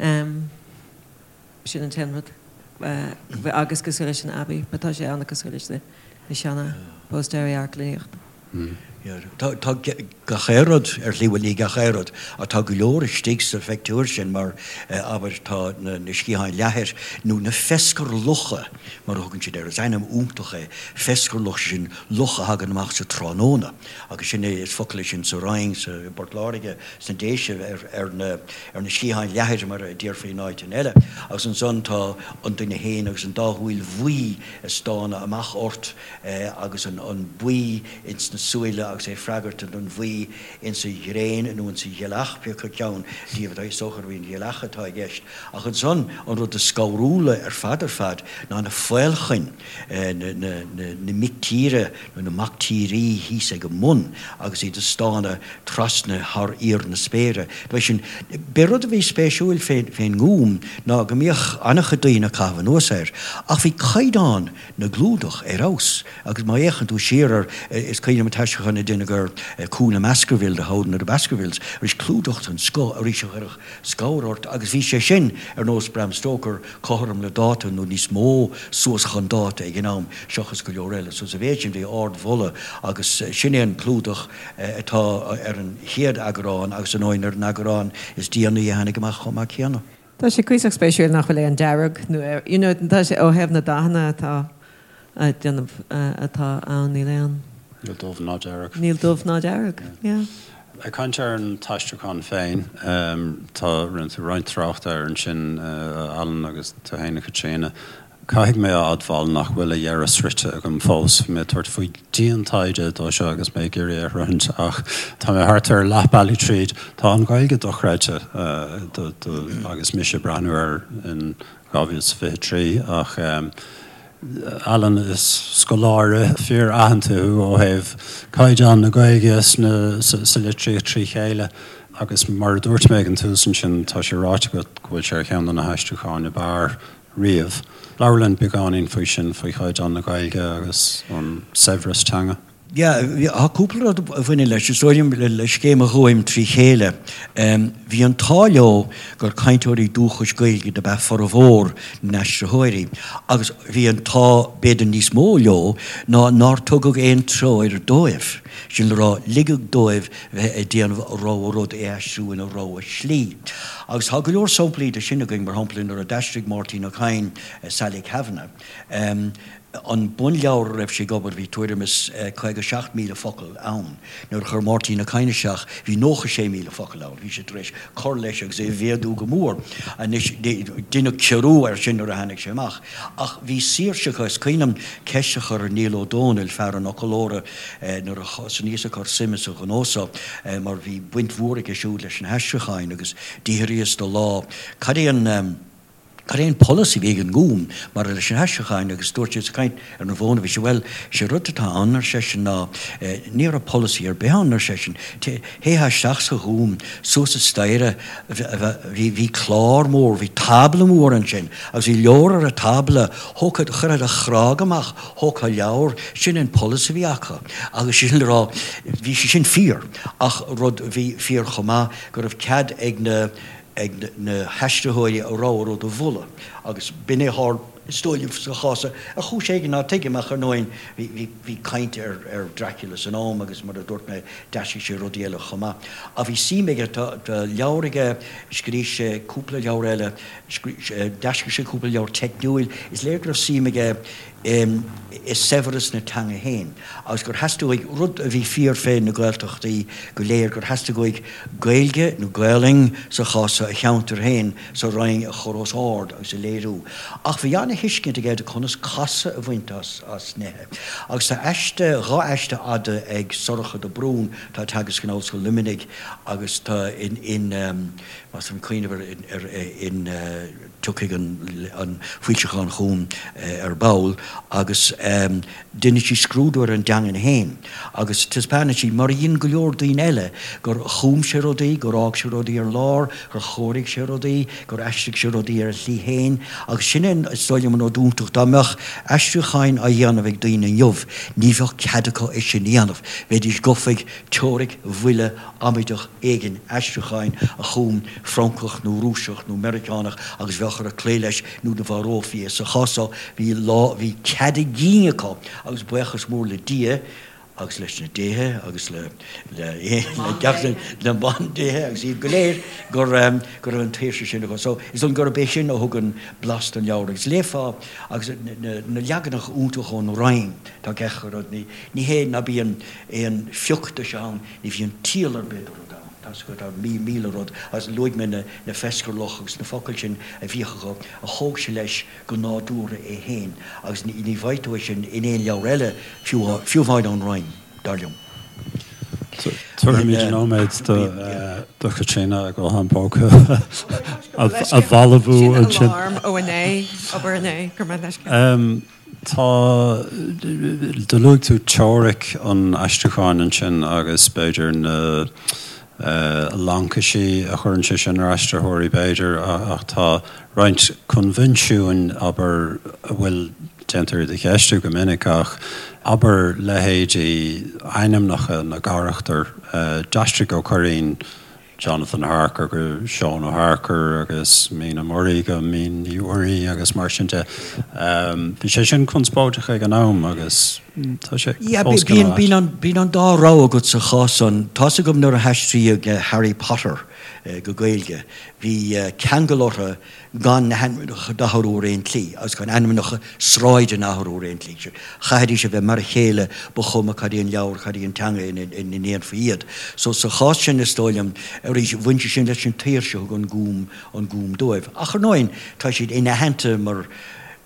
Sin an t-aon rud. Agus cosúil leis an Abbey, but tá sé an-cosúil leis na seana póstaeirí amharclannaíochta. Tá gach aon rud ar shlí, bhuel ní gach aon rud, ach tá go leor istigh sa phictiúr sin mar, abair, tá na sciatháin leathair nó na fescarlucha mar a thugann siad air, is ainm iontach é, fescarluch, sin luch a thagann amach sa tráthnóna agus sin é, is focal é sin sa Rinn, sa i bPort Láirge, sna Déise ar na ar na sciatháin leathair mar a déarfaí in áiteanna eile. Agus ansan tá an duine féin agus an dá shúil bhuí ag stánadh amach ort agus an buí ins na súile agus é ag freagairt don bhuí insa ghréin nó insa ghealach, pé acu ceann díobh atá, is dócha gurb í an ghealach atá i gceist. Ach ansan an rud is scanrúla ar fad ar fad ná na faolchoin, na mic tíre nó na mac tírí thíos ag an mbun agus iad ag stánadh trasna thar íor na spéire. Ba sin, b'é rud a bhí spéisiúil fén nGúm ná go mbíodh an-chuid daoine ag caitheamh anuas air, ach bhí caighdeán na gclúdach ar fheabhas agus má fhéachann tú siar ar, is cuimhin liom an t-aistriúchán a deineadh ar Cú na mBaskerville, The Hound of the Baskervilles, arís clúdach den scoth arís a chuirfeadh scamhar ort agus bhí sé sin ar nós Bram Stoker cothrom le dáta nó níos mó suas chun dáta ag an am seachas go leor eile. So sa mhéid sin bhí ardmholadh agus sin é an clúdach atá ar an chéad eagrán agus ar ndóigh ar an eagrán is déanaí a tháinig amach chomh maith céanna. Tá sé cuíosach spéisiúil nach bhfuil aon dearg nó you know tá sé ó thaobh na dathanna atá a déanamh atá ann níl aon. Níl dubh ná dearg. Níl dubh ná dearg, yeah. Ag caint ar an t-aistriúchán féin, tá rinne tú roinnt tráchta air ansin, a Alan, agus tú féin, a Chaitríona. Caithfidh mé a admháil nach bhfuil a dheireadh sroichte agam fós. Bhí mé ag tabhairt faoi dian-taighde dó seo agus mé ag iarraidh é a shroichint ach tá mé thart ar leath bealaigh tríd. Tá an Ghaeilge dochreidte agus mise ag breathnú air in 2023 ach Alan, is scoláire fíor-aitheanta thú ó thaobh caighdeán na Gaeilge sa litríocht trí chéile agus mar a dúirt mé ag an tús ansin tá sé ráite agat go bhfuil sé ar cheann de na haistriúcháin ab fhearr riamh. Labhair linn beagáinín faoi sin, faoi chaighdeán na Gaeilge agus an saibhreas teanga. Yeah, tá cúpla rud a bhaineann leis. Is dóigh liom le scéim an Ghúim trí chéile, bhí an t-ádh leo gur cainteoirí dúchais Gaeilge dob ea formhór na n-aistritheoirí agus bhí an t-ádh b'fhéidir níos mó leo ná nár tugadh aon treoir dóibh, sin le rá, ligeadh dóibh bheith ag déanamh a rogha rud é aistriú ina rogha slí. Agus tá go leor samplaí de sin againn, mar shampla nuair a d'aistrigh Máirtín Ó Cadhain Sally Kavanagh, an bunleabhar a raibh sé ag obair bhí tuairim is 57,000 focal ann. Nuair a chuir Máirtín Ó Cadhain isteach bhí 96,000 focal ann. Bhí sé tar éis cur leis agus é a mhéadú go mór. Anois deineadh ciorrú air sin nuair a tháinig sé amach. Ach bhí saoirse acu. Is cuimhin liom ceist a chur ar Niall Ó Dónaill, fear an fhoclóra, nuair a thosnaíos ag cur suime sa ghnó so, mar bhí baint mhór aige siúd leis na haistriúcháin agus d'fhiafraíos de lá cad é an cad é an polasaí a bhí ag an nGúm maidir leis na haistriúcháin agus dúirt sé, sa chaint ar an bhfón a bhí sé, bhuel, sé rud atá ann, ar seisean, ná ní raibh polasaí ar bith ann, ar seisean. Théifeá isteach sa Ghúm, suas an staighre, bhí, bhí clár mór, bhí tábla mór ansin agus bhí leabhar ar an tábla, thógfá, chuirfeá do chnág amach, thógfá leabhar, sin an polasaí a bhí acu agus sin le rá, bhí sé sin fíor ach rud a bhí fíor chomh maith go raibh cead ag na, ag na haistritheoirí a rogha rud a mholadh agus b'in é a tharla is dóigh liom sa chás seo, ar chúis éigin ná tuigim ach ar ndóigh bhí, bhí, bhí caint ar, ar Dracula san am agus mar a dúirt mé d'aistrigh sé rudaí eile chomh maith. Ach bhí suim aige, tá, tá leabhar aige, scríobh sé cúpla leabhar eile, d'aistrigh sé cúpla leabhar teicniúil, is léir go raibh suim aige i saibhreas na teanga féin agus gur theastaigh uaidh, rud a bhí fíor fé na Gaeltachtaí go léir, gur theastaigh uaidh Gaeilge nó Gaolainn sa chás seo a cheantar féin sa Rinn a chur os ard agus a léiriú. léiriú. Ach bhí ana-thuiscint aige de conas casadh a bhaint as as nithe. Agus tá aiste, dha aiste fhada ag Sorcha de Brún, atá ag teagasc in Ollscoil Luimnigh agus tá in in más féidir cuimhneamh ar ar in tiocfaidh an an foilseachán chugam ar ball agus déanann sí scrúdú ar an dteangain féin agus taispeánann sí, mar a dhein go leor daoine eile, gur chum sé rudaí, gur fhág sé rudaí ar lár, gur chóirigh sé rudaí, gur aistrigh sé rudaí ar a shlí féin agus sin é is dóigh liom an rud iontach, dá mbeadh aistriúcháin á dhéanamh ag daoine inniu, ní bheadh cead acu é sin a dhéanamh, bheidís gafa ag teoiric bhuile amaideach éigin aistriúcháin a chum Francach nó Rúiseach nó Meiriceánach agus bheadh orthu cloí leis nó do mharófaí é. Sa chás so bhí lá, bhí cead a gcinn acu agus buíochas mór le Dia agus leis na déithe agus le, le, le gach, le bandéithe agus iad go léir gur, go raibh an tsaoirse sin acu. So is dóigh gurb é sin a thugann blas don leabhar agus léifeá agus na, na leaganacha iontacha ón Roinn, tá gach rud, ní, ní hé ná bíonn aon phioc de seo ann, ní bhíonn ciall ar bith do rud ann. Tá 's agat, tá 1000 rud, agus luaigh mé na na fescarluch agus na focail sin a bhíodh acu, a thóg sé leis go nádúrtha é féin, agus ní ní bhfaighidh tú é sin in aon leabhar eile, fiú fiú amháin ón Roinn, dar liom. Tabharfaimid nóiméad do do Chaitríona a guthán póca a bhalbhú ansin. Sin alarm ó inné, obair inné, go raibh maith leis. Tá, do luaigh tú teoiric an aistriúcháin ansin agus b'fhéidir na laincisí a chuireann sé sin ar aistritheoirí b'fhéidir ach tá roinnt coinbhinsiúin, abair, a bhfuil, déantar iad a cheistiú go minic ach abair leithéidí ainmneacha na gcarachtar, d'aistrigh Ó Cuirreáin Jonathan Harker go Seán Ó hEarcair agus Mina Murray go Mín Ní Mhuirí agus mar sin de. Bhí sé sin conspóideach ag an am agus tá sé fós cineál ait. Bíonn an dá rogha agat sa chás san. Tá's agam nuair a haistríodh Harry Potter go Gaeilge, bhí ceangal orthu gan na hainmneacha d'athrú ar aon tslí, agus gan ainmneacha sráideanna a athrú ar aon tslí. Chaithfidís a bheith mar a chéile, ba chuma cad é an leabhar, cad í an teanga ina ndéanfaí iad. So sa chás sin, is dóigh liom, arís, bhain sé sin leis an tsaoirse a thug an Gúm, an Gúm dóibh. Ach ar ndóigh, tá siad inaitheanta mar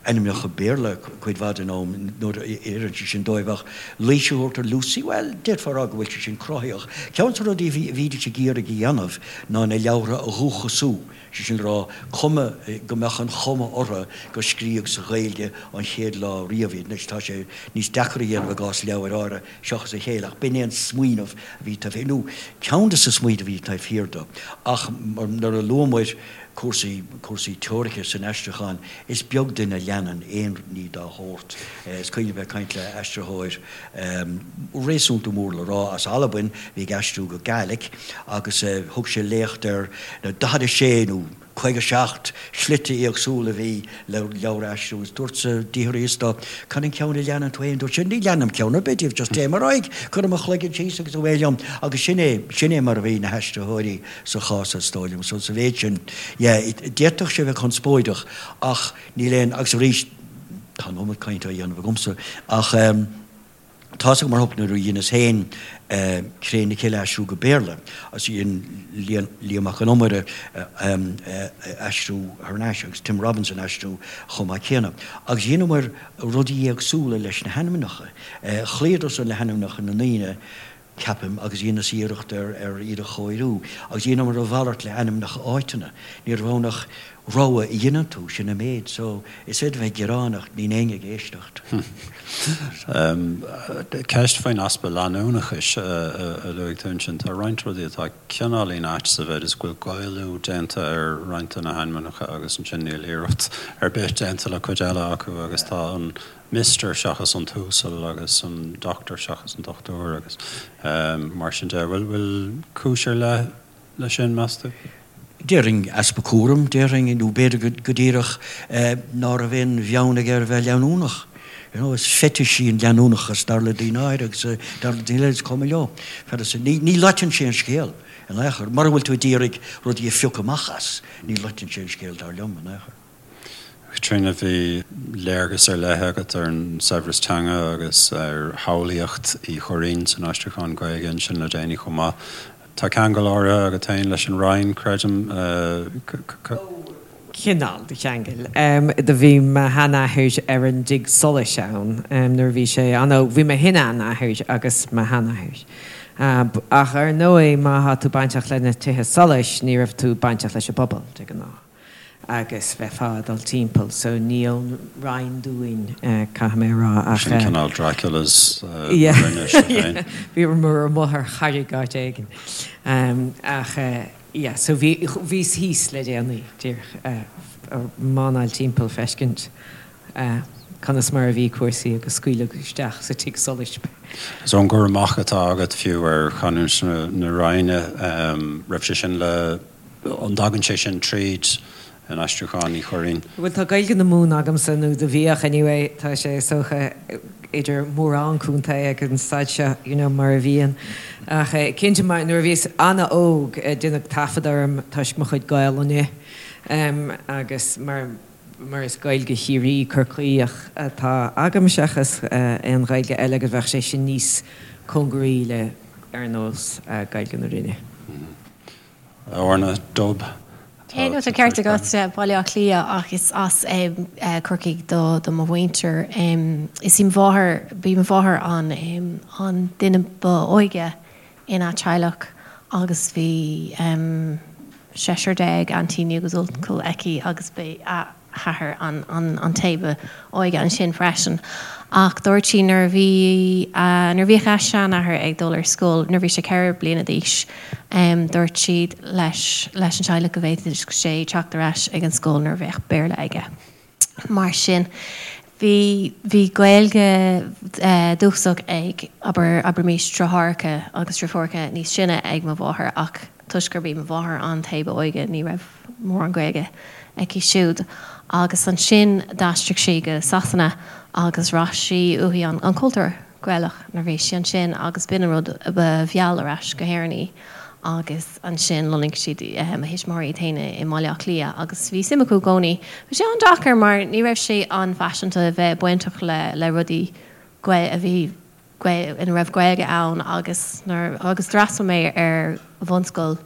ainmneacha Béarla cuid mhaith den am nuair a oireann sé sin dóibh, ach Laoise a thabhairt ar Lucy, bhuel, d'fhéadfá a rá go bhfuil sé sin cruthaitheach. Ceann de na rudaí a bhídís ag iarraidh a dhéanamh ná na leabhartha a dhúchasú. Sé sin le rá, cuma, go mbeadh an chuma orthu gur scríodh sa Ghaeilge an chéad lá riamh iad. Anois, tá sé níos deacra a dhéanamh i gcás leabhair áirithe seachas a chéile, ach b'in é an smaoineamh a bhí taobh thiar, nó ceann de na smaointe a bhí taobh thiar de. Ach nuair a luamair cúrsaí, cúrsaí teoirice san aistriúchán, is beag duine a leanann aon ní dá shórt. Is cuimhin liom bheith ag caint le aistritheoir réasúnta mór le rá as Albain, a bhí ag aistriú go Gàidhlig, agus thug sé léacht ar na 46 nó 57 slite éagsúla a bhí le leabhar a aistriú agus dúrtsa d'fhiafraíos de cad an ceann a leanann tú féin? Dúirt sé ní leanaim ceann ar bith díobh, just téim ar aghaidh, cuirim mo chloigeann síos agus away liom agus sin é, sin é mar a bhí na haistritheoirí sa chás is dóigh liom. So sa mhéid sin, yeah, d'fhéadfadh sé bheith conspóideach ach níl aon, agus arís tá an iomad cainte á dhéanamh agamsa ach eh, Tá's agam mar shampla nuair a dheineas féin Cré na Cille a aistriú go Béarla agus dhein Liam Mac Con Iomaire aistriú thar n-ais agus Tim Robinson aistriú chomh maith céanna. Agus dheineamar rudaí éagsúla leis na hainmneacha. Chloíodar-san le hainmneacha na ndaoine ceapaim, agus dheineas iarracht ar ar iad a chóiriú, agus dheineamar a mhalairt le ainmneacha áiteanna. Ní raibh ann ach rogha a dheineann tú, sin an méid. So, is féidir bheith ag gearán ach níl éinne ag éisteacht. Ceist faoin easpa leanúnachais a luaigh tú ansin. Tá roinnt rudaí atá cineáilín ait sa mhéid is go bhfuil Gaelú déanta ar roinnt de na hainmneacha agus ansin níl iarracht ar bith déanta le cuid eile acu agus tá an Mister seachas an tUasal agus an Doctor seachas an Dochtúir agus mar sin de. Bhfuil cúis ar leith leis sin, meas tú? Déarfainn easpa cúraim, déarfainn, nó b'fhéidir go díreach ná raibh aon bheann aige ar bheith leanúnach. You know, is fetish í an leanúnachas dar le daoine áirithe agus dar le daoine eile is cuma leo. Ní loiteann sé an scéal in aon chor. Mura bhfuil tú ag iarraidh rudaí a phiocadh amach as, ní loiteann sé an scéal dar liom in aon chor. Caitríona, bhí léargas ar leith agat ar an saibhreas teanga agus ar shamhlaíocht Uí Churraoin san aistriúchán Gaeilge ansin le déanaí chomh maith. Tá ceangal áirithe agat féin leis an Roinn, creidim. Cineál de cheangal. Do bhí mo sheanathair ar an dtigh solais ann nuair a bhí sé an-óg. Bhí mo shin-seanathair agus mo sheanathair. Ach ar ndóigh má thá tú bainteach le na tithe solais ní raibh tú bainteach leis an bpobal de ghnáth agus bheifeá ag dul timpeall so ní ón Rinn dúinn caithfidh mé a rá ach. Sin cineál Draculas na Rinne seo féin. Bhíomar amuigh ar charraig áit éigin ach. Yeah, so bhí, bhíos thíos le déanaí, díreach ag mánáil timpeall feiscint conas mar a bhí cúrsaí agus scaoileadh isteach sa tigh solais mé. So an cur amach atá agat fiú ar chanúint na Rinne, raibh sé sin le, an dtagann sé sin tríd in aistriúchán Uí Churraoin? Bhuel tá Gaeilge na Mumhan agamsa, nó do bhíodh anyway, tá sé is dócha idir mórán contae ag an staid seo, you know, mar a bhíonn. Ach cinnte mar nuair a bhíos an-óg deineadh taifead orm toisc mo chuid Gaelainne agus mar mar is Gaeilge Chiarraí Corcaíoch atá agam seachas aon Ghaeilge eile agus bheadh sé sin níos cóngaraí le ar nós Gaeilge na Rinne. Orna, Dub. Tá tá ceart agat, Baile Átha Cliath ach is as Corcaigh do mo mhuintir. Is í mo mháthair, b'í mo mháthair an an duine ba óige ina teaghlach agus bhí seisear déag aintíní agus uncail aici agus b'é a hathair an té ba óige ansin freisin. Ach dúirt sí nuair a bhí, nuair a bhíodh a seanathair ag dul ar scoil, nuair a bhí sé 4 bliana d'aois, dúirt siad leis, leis an teaghlach go bhféadfadh sé teacht ar ais ag an scoil nuair a bheadh Béarla aige. Mar sin, bhí, bhí Gaeilge dúchasach ag, abair, abraimis deartháireacha agus deirfiúracha níos sine ag mo mháthair ach toisc gurb í mo mháthair an té ba óige ní raibh mórán Gaeilge aici siúd. Agus ansin d'aistrigh sí go Sasana agus bhraith sí uaithi an cultúr Gaelach nuair a bhí sí ansin agus b'in an rud a mheall ar ais go hÉirinn í. Agus ansin lonnaigh siad, mo thuismitheoirí iad féin i mBaile Átha Cliath agus bhí suim acu i gcónaí. Bhí sé an-deacair mar ní raibh sé an-fhaiseanta a bheith bainteach le rudaí a bhí ina raibh Gaeilge ann agus nuair agus d'fhreastail mé ar bhunscoil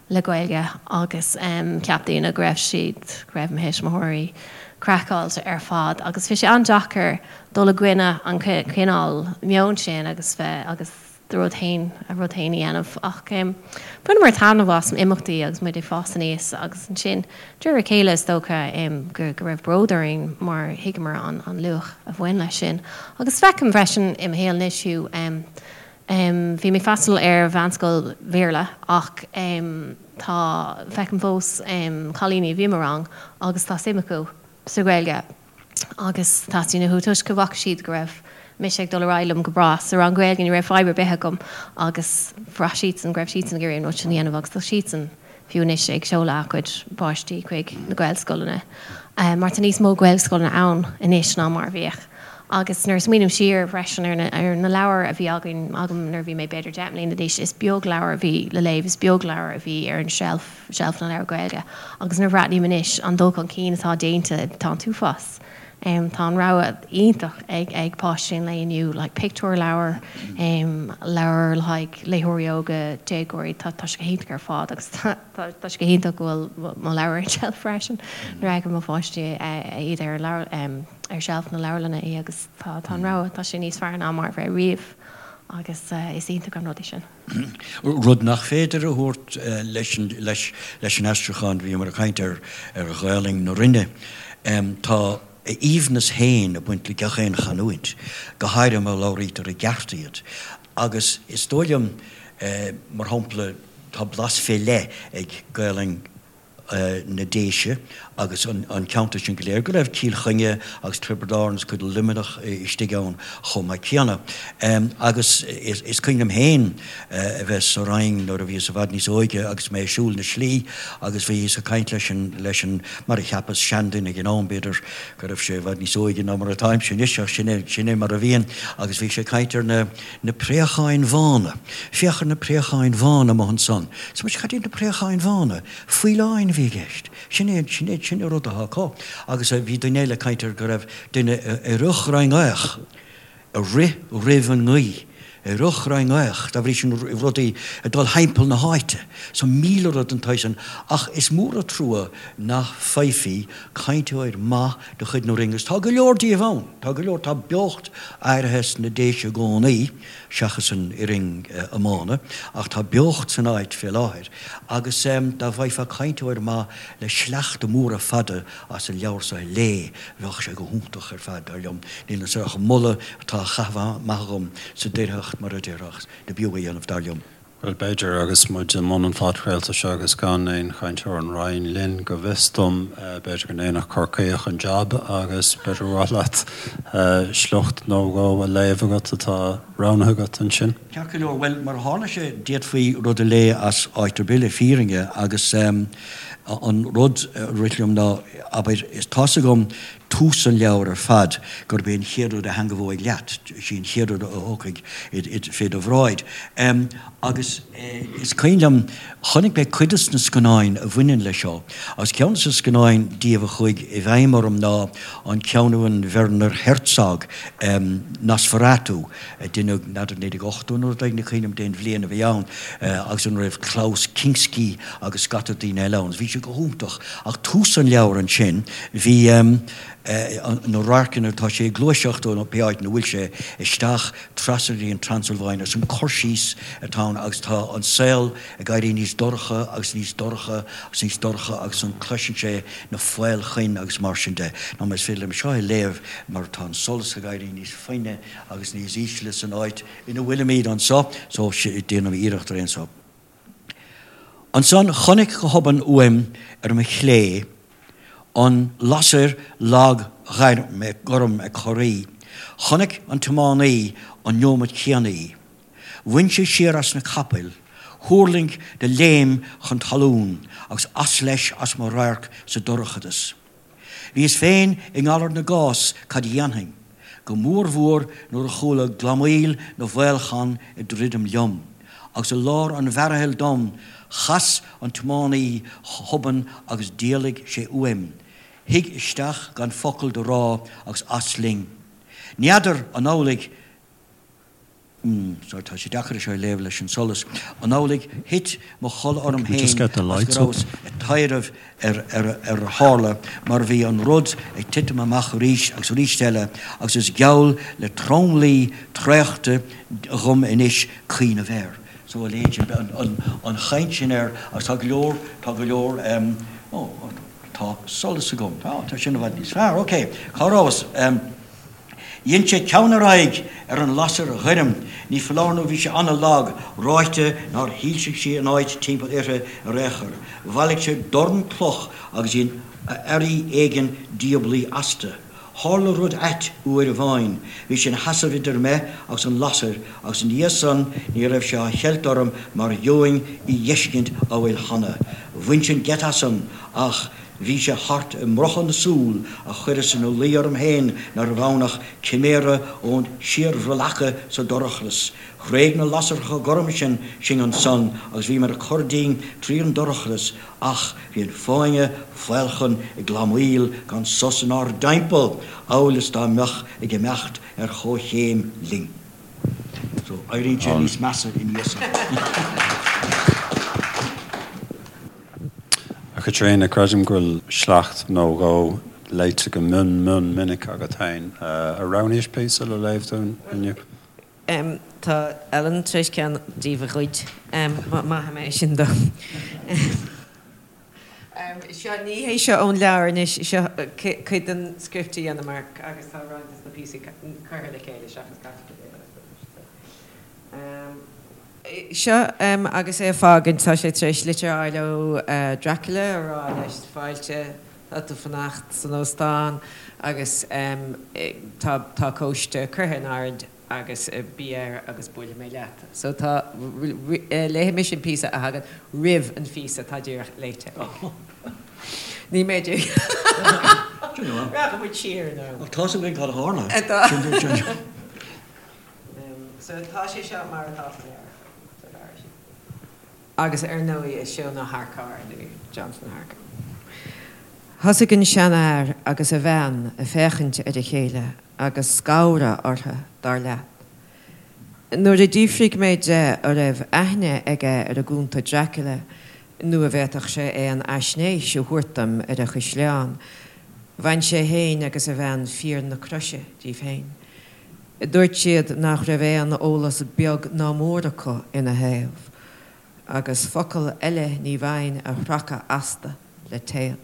le Gaeilge agus cheap daoine go raibh siad, go raibh mo thuismitheoirí craiceáilte ar fad agus bhí sé an-deacair dul i gcoinne an cineál meoin sin agus bheith agus do rud féin, a rud féin a dhéanamh ach bhaineamar taitneamh as imeachtaí agus muid ag fás aníos agus ansin De réir a chéile, is dócha go raibh bród orainn mar thuigeamar an luach a bhain leis sin. Agus feicim freisin i mo shaol anois fiú, bhí mé ag freastal ar mheánscoil Bhéarla ach tá, feicim fós cailíní a bhí i mo rang agus tá suim acu sa Ghaeilge. agus teastaíonn uathu toisc go bhfaca siad go raibh mise ag dul ar aghaidh liom go breá sa rang Gaeilge, ní raibh fadhb ar bith agam agus bhraith siadsan go raibh siadsan ag iarraidh an rud sin a dhéanamh agus tá siadsan fiú anois ag seoladh a gcuid páistí chuig na Gaelscoileanna mar tá níos mó Gaelscoileanna ann anois ná mar a bhíodh. Agus nuair a smaoiním siar freisin ar na ar na leabhair a bhí againn, agam nuair a bhí mé b'fhéidir 10 mbliana d'aois, is beag leabhar a bhí le léamh, is beag leabhar a bhí ar an tseilf. seilf na leabhar Gaeilge agus nuair a bhreathnaím anois an dul chun cinn atá déanta tá an t-uafás. Tá an rogha iontach ag ag páistí an lae inniu like pictiúrleabhair, leabhair le haghaidh léitheoirí óga, déagóirí, tá tá sé go hiontach ar fad agus tá tá sé go hiontach go bhfuil mo leabhar ar an tseilf freisin nuair a fheiceann mo pháistí iad ar leabhar ar sheilf na leabharlainne í agus tá tá an rogha tá sé níos fearr ná mar a bhí riamh agus is iontach an rud é sin. Rud nach féidir a thabhairt leis an aistriúchán, bhíomar ag caint ar Ghaolainn na Rinne. Tá a aoibhneas féin ag baint le gach aon chanúint, go háirithe má labhraítear i gceart iad. Agus is dóigh liom, mar shampla, tá blas fé leith ag Gaolainn na Déise agus an ceantar sin go léir, go raibh Cill Chainnigh agus Tiobraid Árann agus cuid de Luimneach istigh ann chomh maith céanna. Agus is cuimhin liom féin a bheith sa Rinn nuair a bhíos i bhfad níos óige agus mé ag siúl na slí agus bhíos ag caint leis an, leis an, mar a cheapas, seanduine ag an am, b'fhéidir go raibh sé i bhfad níos óige ná mar atáimse anois ach sin é, sin é mar a bhíonn agus bhí sé ag caint ar na, na préacháin bhána. Féach ar na préacháin bhána amuigh ansan. Is muid, cad iad na préacháin bhána? Faoileáin a bhí i gceist. Sin é, sin é, sin é rud atá acu. Agus bhí duine eile ag caint ar go raibh duine ar a dhroim ag rith roimh an ngaoth. Rochranngaoch, dá bhrí sin rudaí ag dul thimpeall na háite. So 1000 rud den tsaghas sin. Ach is mór an trua nach bhfaighfí cainteoir maith de chuid na Rinne agus tá go leor díobh ann. Tá go leor, tá beocht áirithe sna Déise i gcónaí, seachas an fhoireann iomána, ach tá beocht san áit fé láthair agus dá bhfaighfeá cainteoir maith le sleachta móra fada as an leabhar so a léamh, bheadh sé go hiontach ar fad, dar liom. Níl anso ach moladh atá á chaitheamh amach agam sa doircheacht, mar a déarfá, ach dob fhiú a dhéanamh, dar liom. Bhuel, b'fhéidir, agus muid i mbun an phodchraolta seo agus gan aon chainteoir ón Rinn linn, go bhfios dom, b'fhéidir go ndéanfadh Corcaíoch an jab agus b'fhéidir gur mhaith leat sliocht nó dhó a léamh agat atá roghnaithe agat ansin. Ceart go leor, bhuel, mar a tharla sé, d'fhéadfaí rud a léamh as áit ar bith le fírinne agus an rud a rith liom ná, abair, tá's agam tús an leabhair ar fad, gurb é an chéad rud a theangmhóidh leat, is í an chéad rud a thiocfaidh fé do bhráid. Agus is cuimhin liom, chonaic mé cuid de na scannáin a bhaineann leis seo, agus ceann de na scannáin díobh a chuaigh i bhfeidhm orm ná an ceann a rinne Werner Herzog, Nosferatu, a deineadh, n'fheadar, 1980 nó rud éigin, ní cuimhin liom cén bhliain a bhí ann, agus ina raibh Klaus Kinski agus scata daoine eile ann. Bhí sé go hiontach. Ach tús an leabhair ansin, bhí na radharcanna, tá sé ag gluaiseacht ó pé áit ina bhfuil sé, isteach trasna go dtí an Transilváin agus an cur síos atá ann agus tá an saol ag éirí níos dorcha agus níos dorcha agus níos dorcha agus an cloiseann sé na faolchoin agus mar sin de. Nó más féidir liom seo a léamh mar tá an solas ag éirí níos fainne agus níos ísle san áit ina bhfuilimid anseo so déanaim iarracht ar aon so. Ansan chonaic go hobann uaim ar mo chlé an lasair lag ghorm ag corraí. Chonaic an tiománaí an neomat céanna í. Bhain sé siar as na capaill, thuirling de léim chun talún agus as leis as mo radharc sa dorchadas. Bhíos féin i ngalar na gcás cad a dhéanfainn, go mórmhór nuair a chuala glamaíl na bhfaolchon ag druidim liom, agus i lár an mhearaithill dom, chas an tiománaí go hobann agus d'éalaigh sé uaim, shuigh isteach gan focal do rá agus as linn. N'fheadar an amhlaidh. Sorry, tá sé deacair é seo a léamh leis an solas. An amhlaidh thit mo chodladh orm Can we just féin get the agus lights go up? rabhas ag taidhreamh ar ar a tharla mar bhí an rud ag titim amach arís agus arís eile agus is geall le tromluí traochta dhom anois cuimhneamh air. So a leithéid sin, an chaint sin air agus tá go leor, tá go leor, oh, tá solas agam, tá, tá sin i bhfad níos fearr, ok, cá rabhas? Dhein sé ceann ar aghaidh ar an lasair ghoirm, ní foláir nó bhí sé ana-lag, ráite nár shoilsigh sí an áit timpeall uirthi ar aon chor. Bhailigh sé dorn cloch agus dhein earraí éigin diablaí astu. Tharla rud ait uair amháin. Bhí sé ina sheasamh idir mé agus an lasair agus ina dhiaidh san ní raibh sé á cheilt orm mar gheobhainn í dh'fheiscint amhail cheana. Bhain sin geit asam ach Bhí sé thart i mbrothadh na súl a chuireas ina luí orm féin nárbh ann ach ciméara ón síorbhreallacadh sa dorchadas. Thréig na lasracha gorma sin sinn ansan agus bhíomar ag cur dínn tríd an dorchadas ach bhí an fáinne faolchon ag glamaíl gan sos inár dtimpeall amhail is dá mbeadh ag imeacht ar chomhchéim linn. So, éiríonn sé níos measa ina dhiaidh san. A Chaitríona, creidim go bhfuil sleacht nó dhó léite go mion mion minic agat féin. Ar roghnaís píosa le léamh dúinn inniu? Tá Ellen tar éis ceann díobh a ghoid. Maithfidh mé é sin dó. Seo, ní hé seo ón leabhar anois, seo cuid den script a dheineamar agus tá roinnt de na píosaí curtha le chéile seachas caite go léir. Seo agus é ag fágaint, tá sé tar éis litir a fháil ó Dracula a rá leis, fáilte, tá tú fanacht san óstán agus tá tá cóiste curtha in áirithe agus bí air agus buailfidh mé leat. So tá, léifidh mise an píosa a thagann roimh an phíosa atá díreach léite ag. Ní mé dé. Rachaidh muid siar in am. Ach tá's againn cad a tharla. Tá. So tá sé seo mar atá sa leabhar, sa leabhar sin. Agus ar ndóigh is Seon Ó hEarcáir nó Jonathan Harker. Thosaigh an seanfhear agus a bhean ag féachaint ar a chéile agus scanradh orthu, dar leat. Nuair a d'fhiafraigh mé de an raibh aithne aige ar an gCunta Dracula nó an bhféadfadh sé aon fhaisnéis a thabhairt dom ar an chaisleán, bhain sé féin agus a bhean fíor na croise díobh féin. Dúirt siad nach raibh aon eolas beag ná mór acu ina thaobh, agus focal eile ní bhfaighinn a shracadh astu le téad.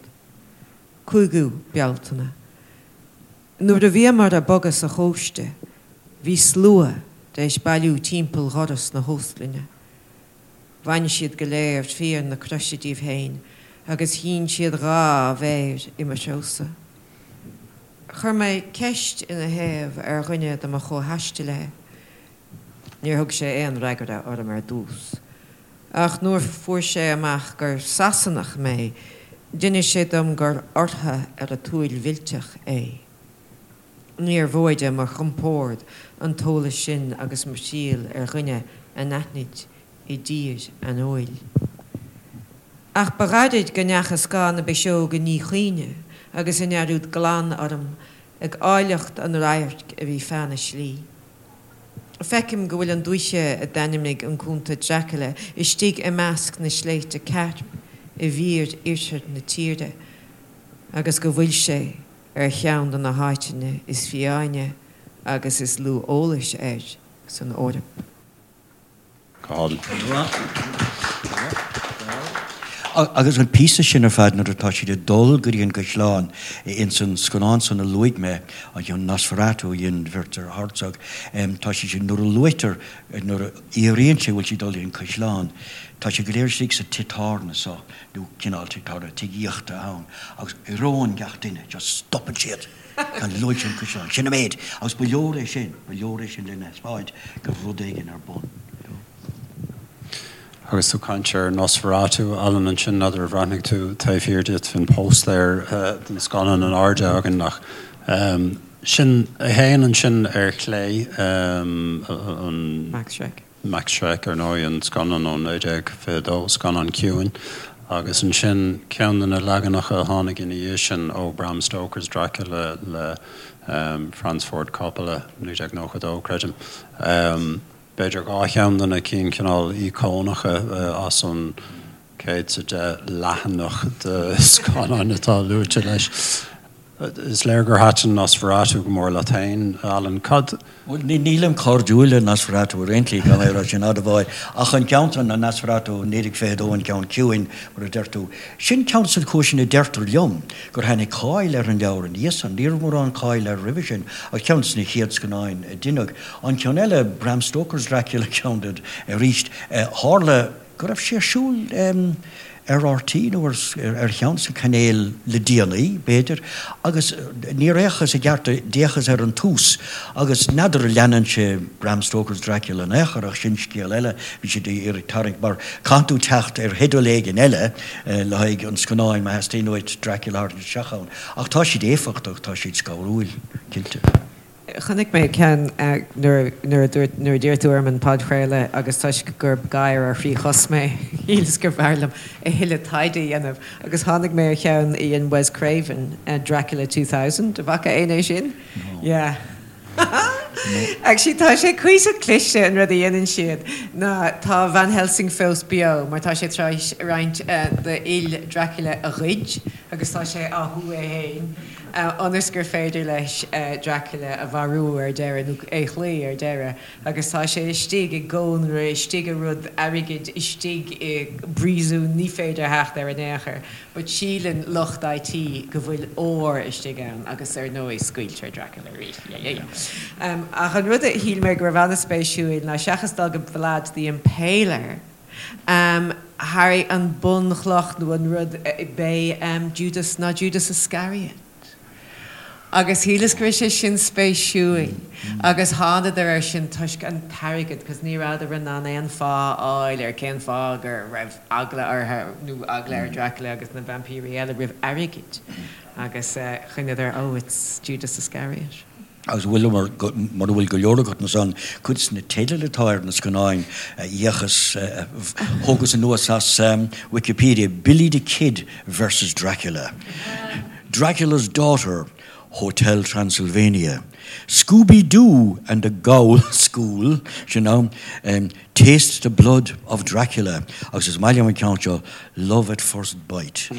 5ú Bealtaine. Nuair a bhíomar ag bogadh sa chóiste, bhí slua d'éis bailiú timpeall dhoras na hóstlainne. Bhain siad go léir fíor na croise díobh féin agus shín siad dha mhéir i mo threosa. Chuir mé ceist ina thaobh ar dhuine de mo chomhthaistealaithe. Níor thug sé aon fhreagra orm ar dtús. Ach nuair fuair sé amach gur Sasanach mé, d'inis sé dom gur orthu ar a tsúil mhillteach é. Níor mhóide mo chompord an t-eolas sin agus mo thriall ar dhuine anaithnid i dtír aineoil. Ach ba ghairid go ndeacha scáth na bpiseog i ndíchuimhne agus i ndearúd glan orm ag áilleacht an radhairc a bhí feadh na slí. Feicim go bhfuil an dúiche a d'ainmnigh an Cunta Dracula istigh i measc na sléibhte Cairp i bhfíor-oirthear na tíre agus go bhfuil sé ar cheann de na háiteanna is fiáine agus is lú eolais air san Eoraip. Go Agus an píosa sin ar fad nuair atá siad ag dul go dtí an gcaisleán ins an scannán san a luaigh mé, an ceann Nosferatu a dhein Werner Herzog, tá sé sin, nuair a luaitear, nuair a fhiafraíonn sé an bhfuil siad ag dul go dtí an caisleán, tá siad go léir istigh sa tigh tábhairne so, nó cineál tigh tábhairne, tigh aíochta ann, agus éiríonn gach duine, just stopann siad. Gan luaigh sé an caisleán. Sin an méid. Agus ba leor é sin, ba leor é sin lena thaispeáint go raibh rud éigin ar bun. Agus tú ag caint ar Nosferatu, Alan, ansin, n'fheadar ar bhreathnaigh tú taobh thiar díot, bhí an póstaer den scannán in airde againn ach sin é féin ansin ar chlé, an. Max Schreck. Max Schreck, ar ndóigh, an scannán ó 1922, scannán ciúin, agus ansin ceann de na leaganacha a tháinig ina dhiaidh sin ó Bram Stoker's Dracula le Francis Ford Coppola, 1992, creidim. B'fhéidir dhá cheann de na cinn cineál íocónacha as an 110 leathanach de scannáin atá luaite leis. Is léir gur thaitin Nosferatu go mór leat féin, Alan. Cad. Bhuel, nílim cairdiúil le Nosferatu ar aon tslí, gan é a rá sin admháil, ach an ceann san, an Nosferatu 1922, an ceann ciúin, mar a deir tú, sin ceann de na cúiseanna a deirtear liom gur tháinig cáil ar an leabhar ina dhiaidh san. Ní raibh mórán cáil air roimhe sin, ach ceann de na chéad scannáin a deineadh. An ceann eile, Bram Stoker's Dracula, ceann de arís, tharla go raibh sé ar siúl ar RTÉ nó ar cheann de na cainéil le déanaí, b'fhéidir, agus níor fhéachas i gceart, d'fhéachas ar an tús agus n'fheadar an leanann sé Bram Stoker's Dracula in aon chor ach sin scéal eile, bhí siad ag iarraidh tarraingt mar caitheann tú teacht ar theideal éigin eile le haghaidh an scannáin má theastaíonn uait Dracula a tharraingt isteach ann ach tá siad éifeachtach, tá siad scanrúil, cinnte. Chonaic mé ceann nuair a dúirt, nuair a d'iarr tú orm an podchraoladh agus toisc gurb gadhar ar thrí chos mé, shíleas gurbh fhearr liom a thuilleadh taighde a dhéanamh agus tháinig mé ar cheann a dhein Wes Craven, Dracula 2000, an bhfaca éinne é sin? No. Yeah. Actually tá sé cuíosach cliste an rud a dhéanann siad ná tá Van Helsing fós beo mar tá sé tar éis roinnt d'fhuil Dracula a ghoid agus tá sé á shú é féin. ionas gur féidir leis Dracula a mharú ar deireadh, nó é a chloí ar deireadh, agus tá sé istigh i gcónra, istigh i rud airgid, istigh i bpríosún, ní féidir theacht air in aon chor. But síleann lucht IT go bhfuil ór istigh ann agus ar ndóigh scaoiltear Dracula arís. Yeah, yeah, yeah. Ach an rud a shíl mé go raibh an-spéisiúil ná seachas dul go Vlad the Impaler, Harry, an bunchloch nó an rud b'é Judas ná Judas Iscariot. Agus shíleas go raibh sé sin spéisiúil agus thánadar air sin toisc an t-airgead cos ní rabhadar in ann aon fáth a fháil ar cén fáth go raibh eagla orthu nó eagla ar Dracula agus na vaimpírí eile roimh airgead agus choinneadar oh it's Judas Iscariot. Agus bhfuil, mura bhfuil go leor agat ansan, cuid de na teidil atá ar na scannáin a fhéachas, thógas anuas as Wikipedia, Billy the Kid versus Dracula, Dracula's Daughter, Hotel Transylvania, Scooby Doo and the Ghoul School, sin ann, Taste the Blood of Dracula agus is maith liom an ceann seo, Love at First Bite.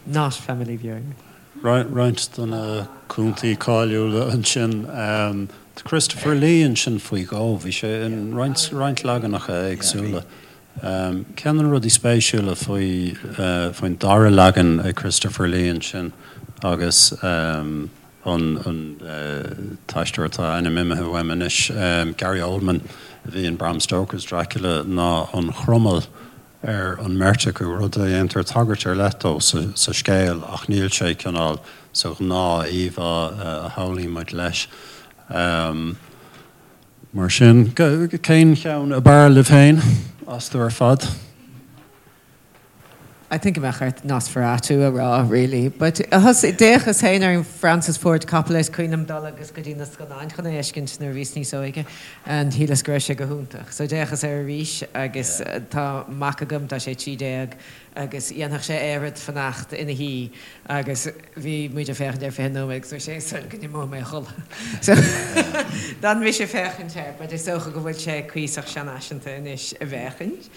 Not family viewing. Roinnt de na cúntaí cáiliúla ansin. Tá Christopher Lee ansin faoi dhó. Bhí sé in roinnt roinnt leaganacha éagsúla. Ceann de na rudaí spéisiúla faoi faoin dara leagan ag Christopher Lee ansin agus an an t-aisteoir atá a ainm imithe uaim anois, Gary Oldman a bhí in Bram Stoker's Dracula ná an chromail ar an mbeirt acu, rud a dhéantar tagairt ar leith dó sa scéal ach níl sé cineál sa ghnáth-íomhá a shamhlaíonn muid leis. Mar sin, cén cheann ab fhearr libh féin astu ar fad? I think go mbeadh ort Nosferatu a rá really but d'fhéachas féin ar an Francis Ford Coppola is cuimhin liom dul agus go dtí na scannáin chun é a fheiscint nuair a bhíos níos óige and shíleas go raibh sé go hiontach. So d'fhéachas air arís agus tá mac agam, tá sé 13 agus dhéanfadh sé oiread fanacht ina shuí agus bhí muid ag féachaint air 20 nóiméad agus dúirt sé is dóigh go n-imeoidh mé a chodladh. So d'fhan mise ag féachaint air but is dócha go bhfuil sé cuíosach seanfhaiseanta anois a bhféachaint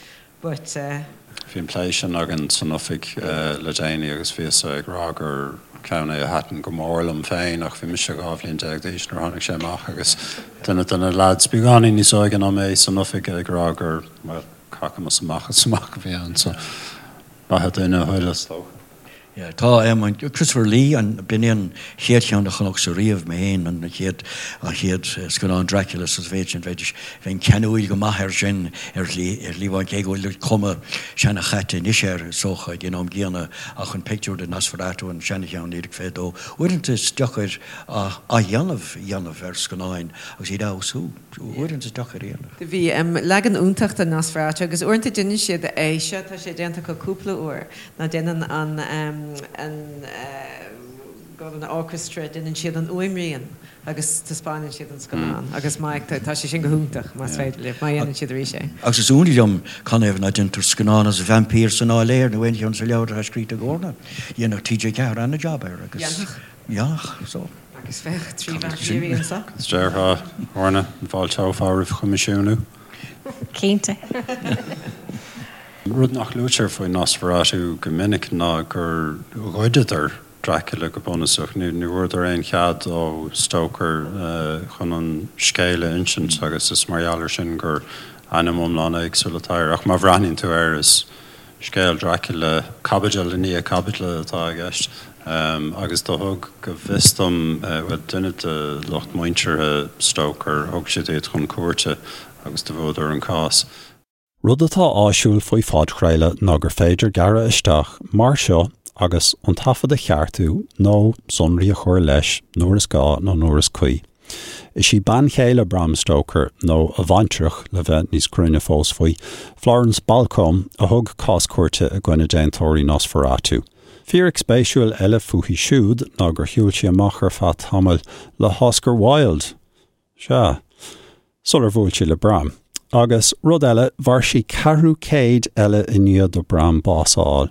but eh. Bhí an plé sin againn san oifig le déanaí agus bhíos-sa ag rá gur ceann é a thaitin go mór liom féin ach bhí mise 12 bhliain d'aois nuair a tháinig sé amach agus duine de na leaids beagáinín níos óige ná mé san oifig ag rá gur, bhuel, cacamas amach is amach a bhí ann so beatha duine a thuill is dócha. Yeah, tá em, Christopher Lee, an, b'in é an chéad cheann a chonacsa riamh, mé féin, an chéad, an chéad scannán Dracula sa mhéid sin, bheidís, bheinn ceanúil go maith air sin ar shlí, ar shlí amháin, cé go bhfuil cuma seana-chaite anois air, is dócha, ag an am gcéanna, ach an pictiúr de Nosferatu, an seana-cheann, 1922, uaireanta is deacair athdhéanamh a dhéanamh ar scannáin agus iad a fheabhsú. Uaireanta is deacair a dhéanamh. Do bhí leagan iontach de Nosferatu agus uaireanta déanann siad é seo, tá sé déanta acu cúpla uair, ná déanann an an an orchestra, déanann siad an fhuaimrian agus taispeánann siad an scannán agus má tá sé sin go hiontach más féidir libh, má dhéanann siad arís é. Agus is ionadh liom canathaobh ná déantar scannán as Vaimpír san Áiléar nó aon cheann de na leabhair atá scríte ag Orna. Dhéanfadh TG4 ana-jab air agus. Dhéanfadh. Dhéanfadh, so. Agus bheadh 3 vaimpírí anso. Is déarfá, Orna, an bhfáilteofá roimh choimisiúnú? Cinnte. Rud nach luaitear faoi Nosferatu go minic ná gur ghoideadar Dracula go bunúsach. Ní bhfuaireadar aon chead ó Stoker chun an scéal a insint agus is mar gheall air sin gur ainm iomlán éagsúil atá air. Ach má bhreathnaíonn tú air is Scéal Dracula, caibidil i ndiaidh caibidle atá i gceist, agus do thug, go bhfios dom, bhuel, duine de lucht muinteartha Stoker, thug siad iad chun cúirte agus do bhuadar an cás. Rud atá áisiúil faoi phodchraoladh ná gur féidir gearradh isteach mar seo agus an taifead a cheartú nó sonraí a chur leis nuair is gá nó nuair is cuí. Is í bean chéile Bram Stoker, nó a bhaintreach le bheith níos cruinne fós faoi, Florence Balcombe, a thug cás cúirte i gcoinne déantóirí Nosferatu. Fíric spéisiúil eile fúithi siúd ná gur shiúil sí amach ar feadh tamaill le hOscar Wilde! Sea. Sular bhuail sí le Bram. Agus, rud eile, mhair sí ceathrú céid eile i ndiaidh do Bram bás a fháil.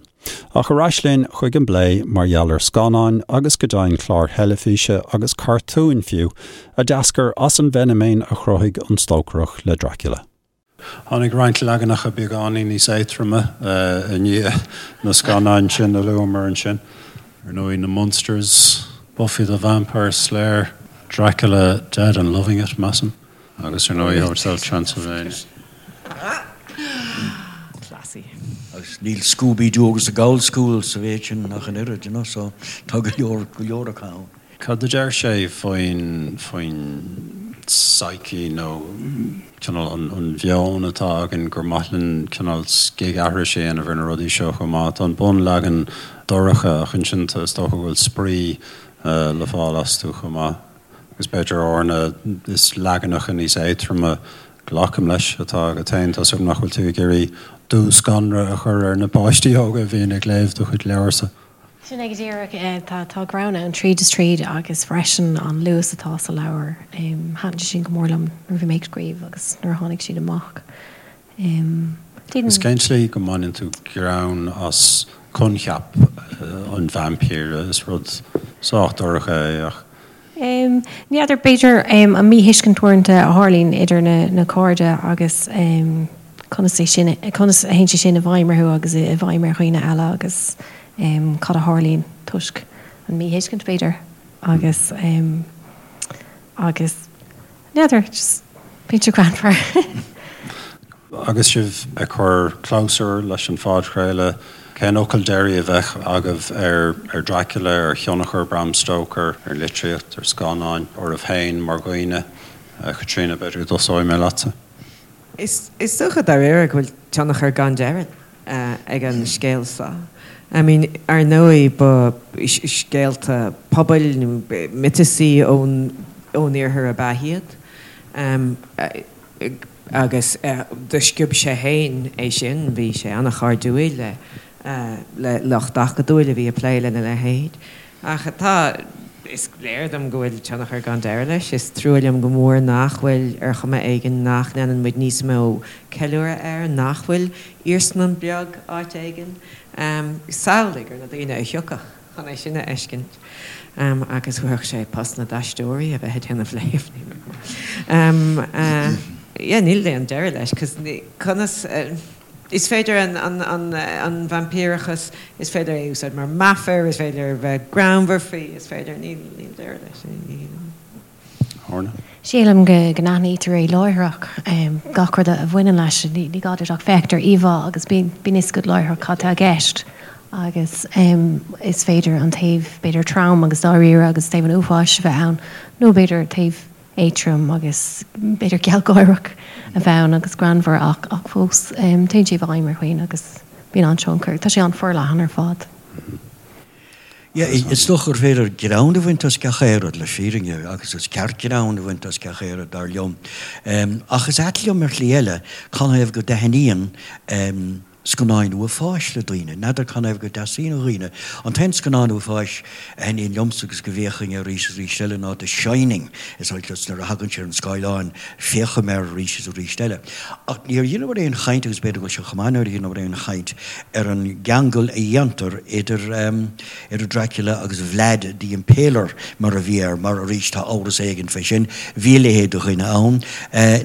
Ach ar ais linn chuig an bplé mar gheall ar scannáin agus go deimhin cláir theilifíse agus cartúin fiú, a d'eascair as an bhfeiniméan a chruthaigh an Stócaireach le Dracula. Tháinig roinnt leaganacha beagáinín níos éadtroime i ndiaidh na scannáin sin a luamar ansin. Ar ndóigh, na Munsters, Buffy the Vampire Slayer, Dracula Dead and Loving It, measaim, agus ar ndóigh Hotel Transylvania. Classy. Agus níl Scooby Doo agus The Ghoul School sa mhéid sin ach an oiread, you know, so tá go leor, go leor acu ann. Cad a deir sé faoin, faoin psyche nó cineál an, an mheon atá againn gur maith linn cineál scigaithris a dhéanamh ar na rudaí seo chomh maith. Tá an bunleagan dorcha ach ansin tá, is dócha go bhfuil spraoi le fáil astu chomh maith. Agus b'fhéidir Orna, is leaganacha níos éadtroime, glacaim leis, atá agat féin. Tá 's agam nach bhfuil tú ag iarraidh dúscanradh a chur ar na páistí óga a bhíonn ag léamh do chuid leabharsa. Sin é go díreach. Tá tá greann ann tríd is tríd agus freisin an luas atá sa leabhar. Thaitin sé sin go mór liom nuair a bhí mé ag scríobh agus nuair a tháinig siad amach. Is cén tslí go mbaineann tú greann as? coincheap an vaimpíre, is rud sách dorcha é ach. Ní fheadar, b'fhéidir an míthuiscint uaireanta a tharlaíonn idir na cairde agus conas é sin, conas a théann sé sin i bhfeidhm orthu agus i bhfeidhm ar dhaoine eile agus cad a tharlaíonn toisc an míthuiscint b'fhéidir agus agus n'fheadar, just bíonn sé greannmhar. Agus sibh ag cur clabhsúr leis an phodchraoladh, cén fhocal deiridh a bheadh agaibh ar Dracula, ar thionchar Bram Stoker ar litríocht, ar scannáin, oraibh féin mar dhaoine? A Chaitríona, b'fhéidir go dtosóidh mé leatsa. Is dócha dáiríre go bhfuil tionchar gan deireadh ag an scéal seo. I mean, ar ndóigh ba scéalta pobail nó miotasaí ón iarthar ab ea iad. Agus do sciob sé féin é sin, bhí sé an-chairdiúil le le lucht acadúil a bhí ag plé lena leithéid. Ach tá, is léir dom go bhfuil tionchar gan deireadh leis. Is trua liom go mór nach bhfuil, ar chuma éigin, nach ndéanann muid níos mó ceiliúradh air, nach bhfuil iarsmalann beag áit éigin. Samhlaigh ar na daoine a thiocfadh chun é sin a fheiscint. Agus thabharfadh sé post na d'aisteoirí a bheith ag déanamh léamh. Yeah, níl aon deireadh leis, 'cause conas. Is féidir an vaimpíreachas, is féidir é a úsáid mar meafar, is féidir a bheith greannmhar faoi, is féidir, níl deireadh leis. Orna. Sílim go n-aithnítear é láithreach, gach rud a bhaineann leis, ní gá duit ach féachaint ar íomhá agus bíonn fhios agat láithreach cad tá i gceist agus is féidir an taobh b'fhéidir trom agus dáiríre agus taobh an uafáis a bheith ann nó b'fhéidir taobh éadrom agus b'fhéidir gealgháireach a bheith ann agus greannmhar ach ach fós téann sé i bhfeidhm ar dhaoine agus bíonn an-tionchar. Tá sé an-forleathan ar fad. Yeah, is dócha gur féidir greann a bhaint as gach aon rud le fírinne agus is ceart greann a bhaint as gach aon rud dar liom. Ach is ait liom ar shlí eile canathaobh go dtaitníonn scannáin uafáis le daoine. N'fheadar canathaobh go dteastaíonn ó dhaoine. An t-aon scannán uafáis a thaitníonn liomsa agus go bhféachfainn air arís is arís eile ná The Shining. Is oth liom nuair a thagann sé ar an scáileán féachaim air arís is arís eile. Ach níor dheineamar aon chaint, agus b'fhéidir go bhfuil sé chomh maith nár dheineamar aon chaint, ar an gceangal a dhéantar idir idir Dracula agus Vlad the Impaler mar a bhí air, mar arís tá amhras éigin fé sin. Bhí a leithéid de dhuine ann.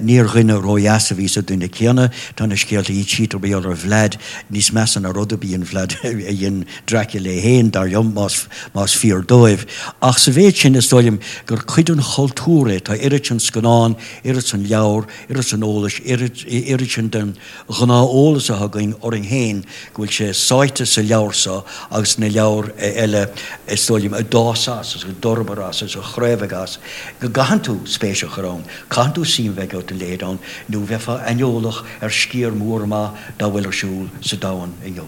Níor dhuine ródheas a bhí sa duine céanna. Tá na scéalta a insítear mar gheall ar Vlad níos measa ná rud ar bith a dhein Vlad a dhein Dracula é féin, dar liom, más más fíor dóibh. Ach sa mhéid sin is dóigh liom gur cuid den chultúr é. Tá oiread sin scannán, oiread sin leabhar, oiread sin eolais, oiread sin den ghnáth-eolas atá againn orainn féin go bhfuil sé sáite sa leabhar seo agus sna leabhair eile is dóigh liom a d'fhás as agus a d'fhorbair as agus a chraobhaigh as, go gcaitheann tú spéis a chur ann, caitheann tú suim bheith agat ina leithéid ann nó bheifeá aineolach ar sciar mór maith dá bhfuil ar siúl sa domhan inniu.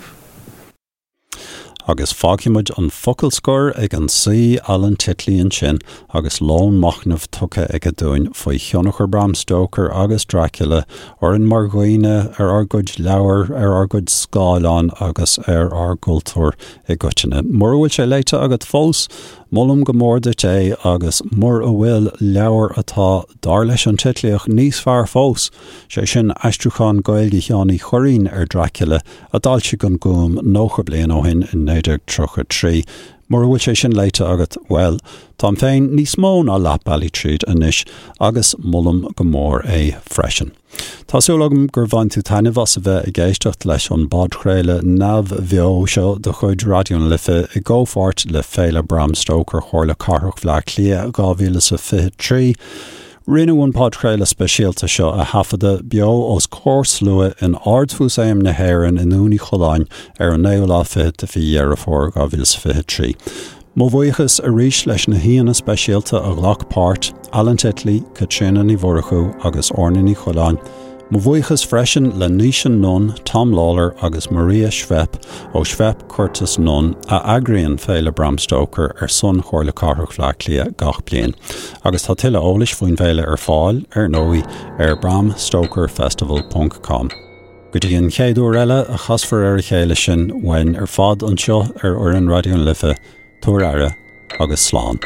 Agus fágfaidh muid an focal scoir ag an saoi Alan Titley ansin agus lón machnaimh tugtha aige dúinn faoi thionchar Bram Stoker agus Dracula orainn mar dhaoine, ar ár gcuid leabhar, ar ár gcuid scáileán agus ar ár gcultúr i gcoitinne. Mura bhfuil sé léite agat fós, molaim go mór duit é agus mura bhfuil, leabhar atá, dar leis an Titlíoch, níos fearr fós, sé sin aistriúchán Gaeilge Sheáin Uí Churraoin ar Dracula, a d'fhoilsigh an Gúm 90 bliain ó shin in 1933. Mura bhfuil sé sin léite agat, bhuel, táim féin níos mó ná leath bealaigh tríd anois agus molaim go mór é freisin. Tá súil agam gur bhain tú taitneamh as a bheith ag éisteacht leis an bpodchraoladh neamhbheo seo de chuid Raidió na Life i gcomhpháirt le Féile Bram Stoker Chomhairle Cathrach Bhaile Átha Cliath 2023. Rinneadh an podchraoladh speisialta seo a thaifeadadh beo os comhair slua in Ard-Mhúsaem na hÉireann i nDún Uí Choileáin ar an naoú lá fichead de mhí Dheireadh Fómhair 2023. Mo bhuíochas arís leis na haíonna speisialta a ghlac páirt, Alan Titley, Caitríona Ní Mhurchú agus Orna Ní Choileáin. Mo bhuíochas freisin le Naoise Nunn, Tom Lawlor agus Maria Schweppe ó Schweppe Curtis Nunn a eagraíonn Féile Bram Stoker ar son Chomhairle Cathrach Bhaile Átha Cliath gach bliain. Agus tá tuilleadh eolais faoin bhféile ar fáil, ar ndóigh, ar bramstokerfestival ponc com. Go dtí an chéad uair eile a chasfar ar a chéile sinn, uainn ar fad anseo ar fhoireann Raidió na Life, tabhair aire agus slán.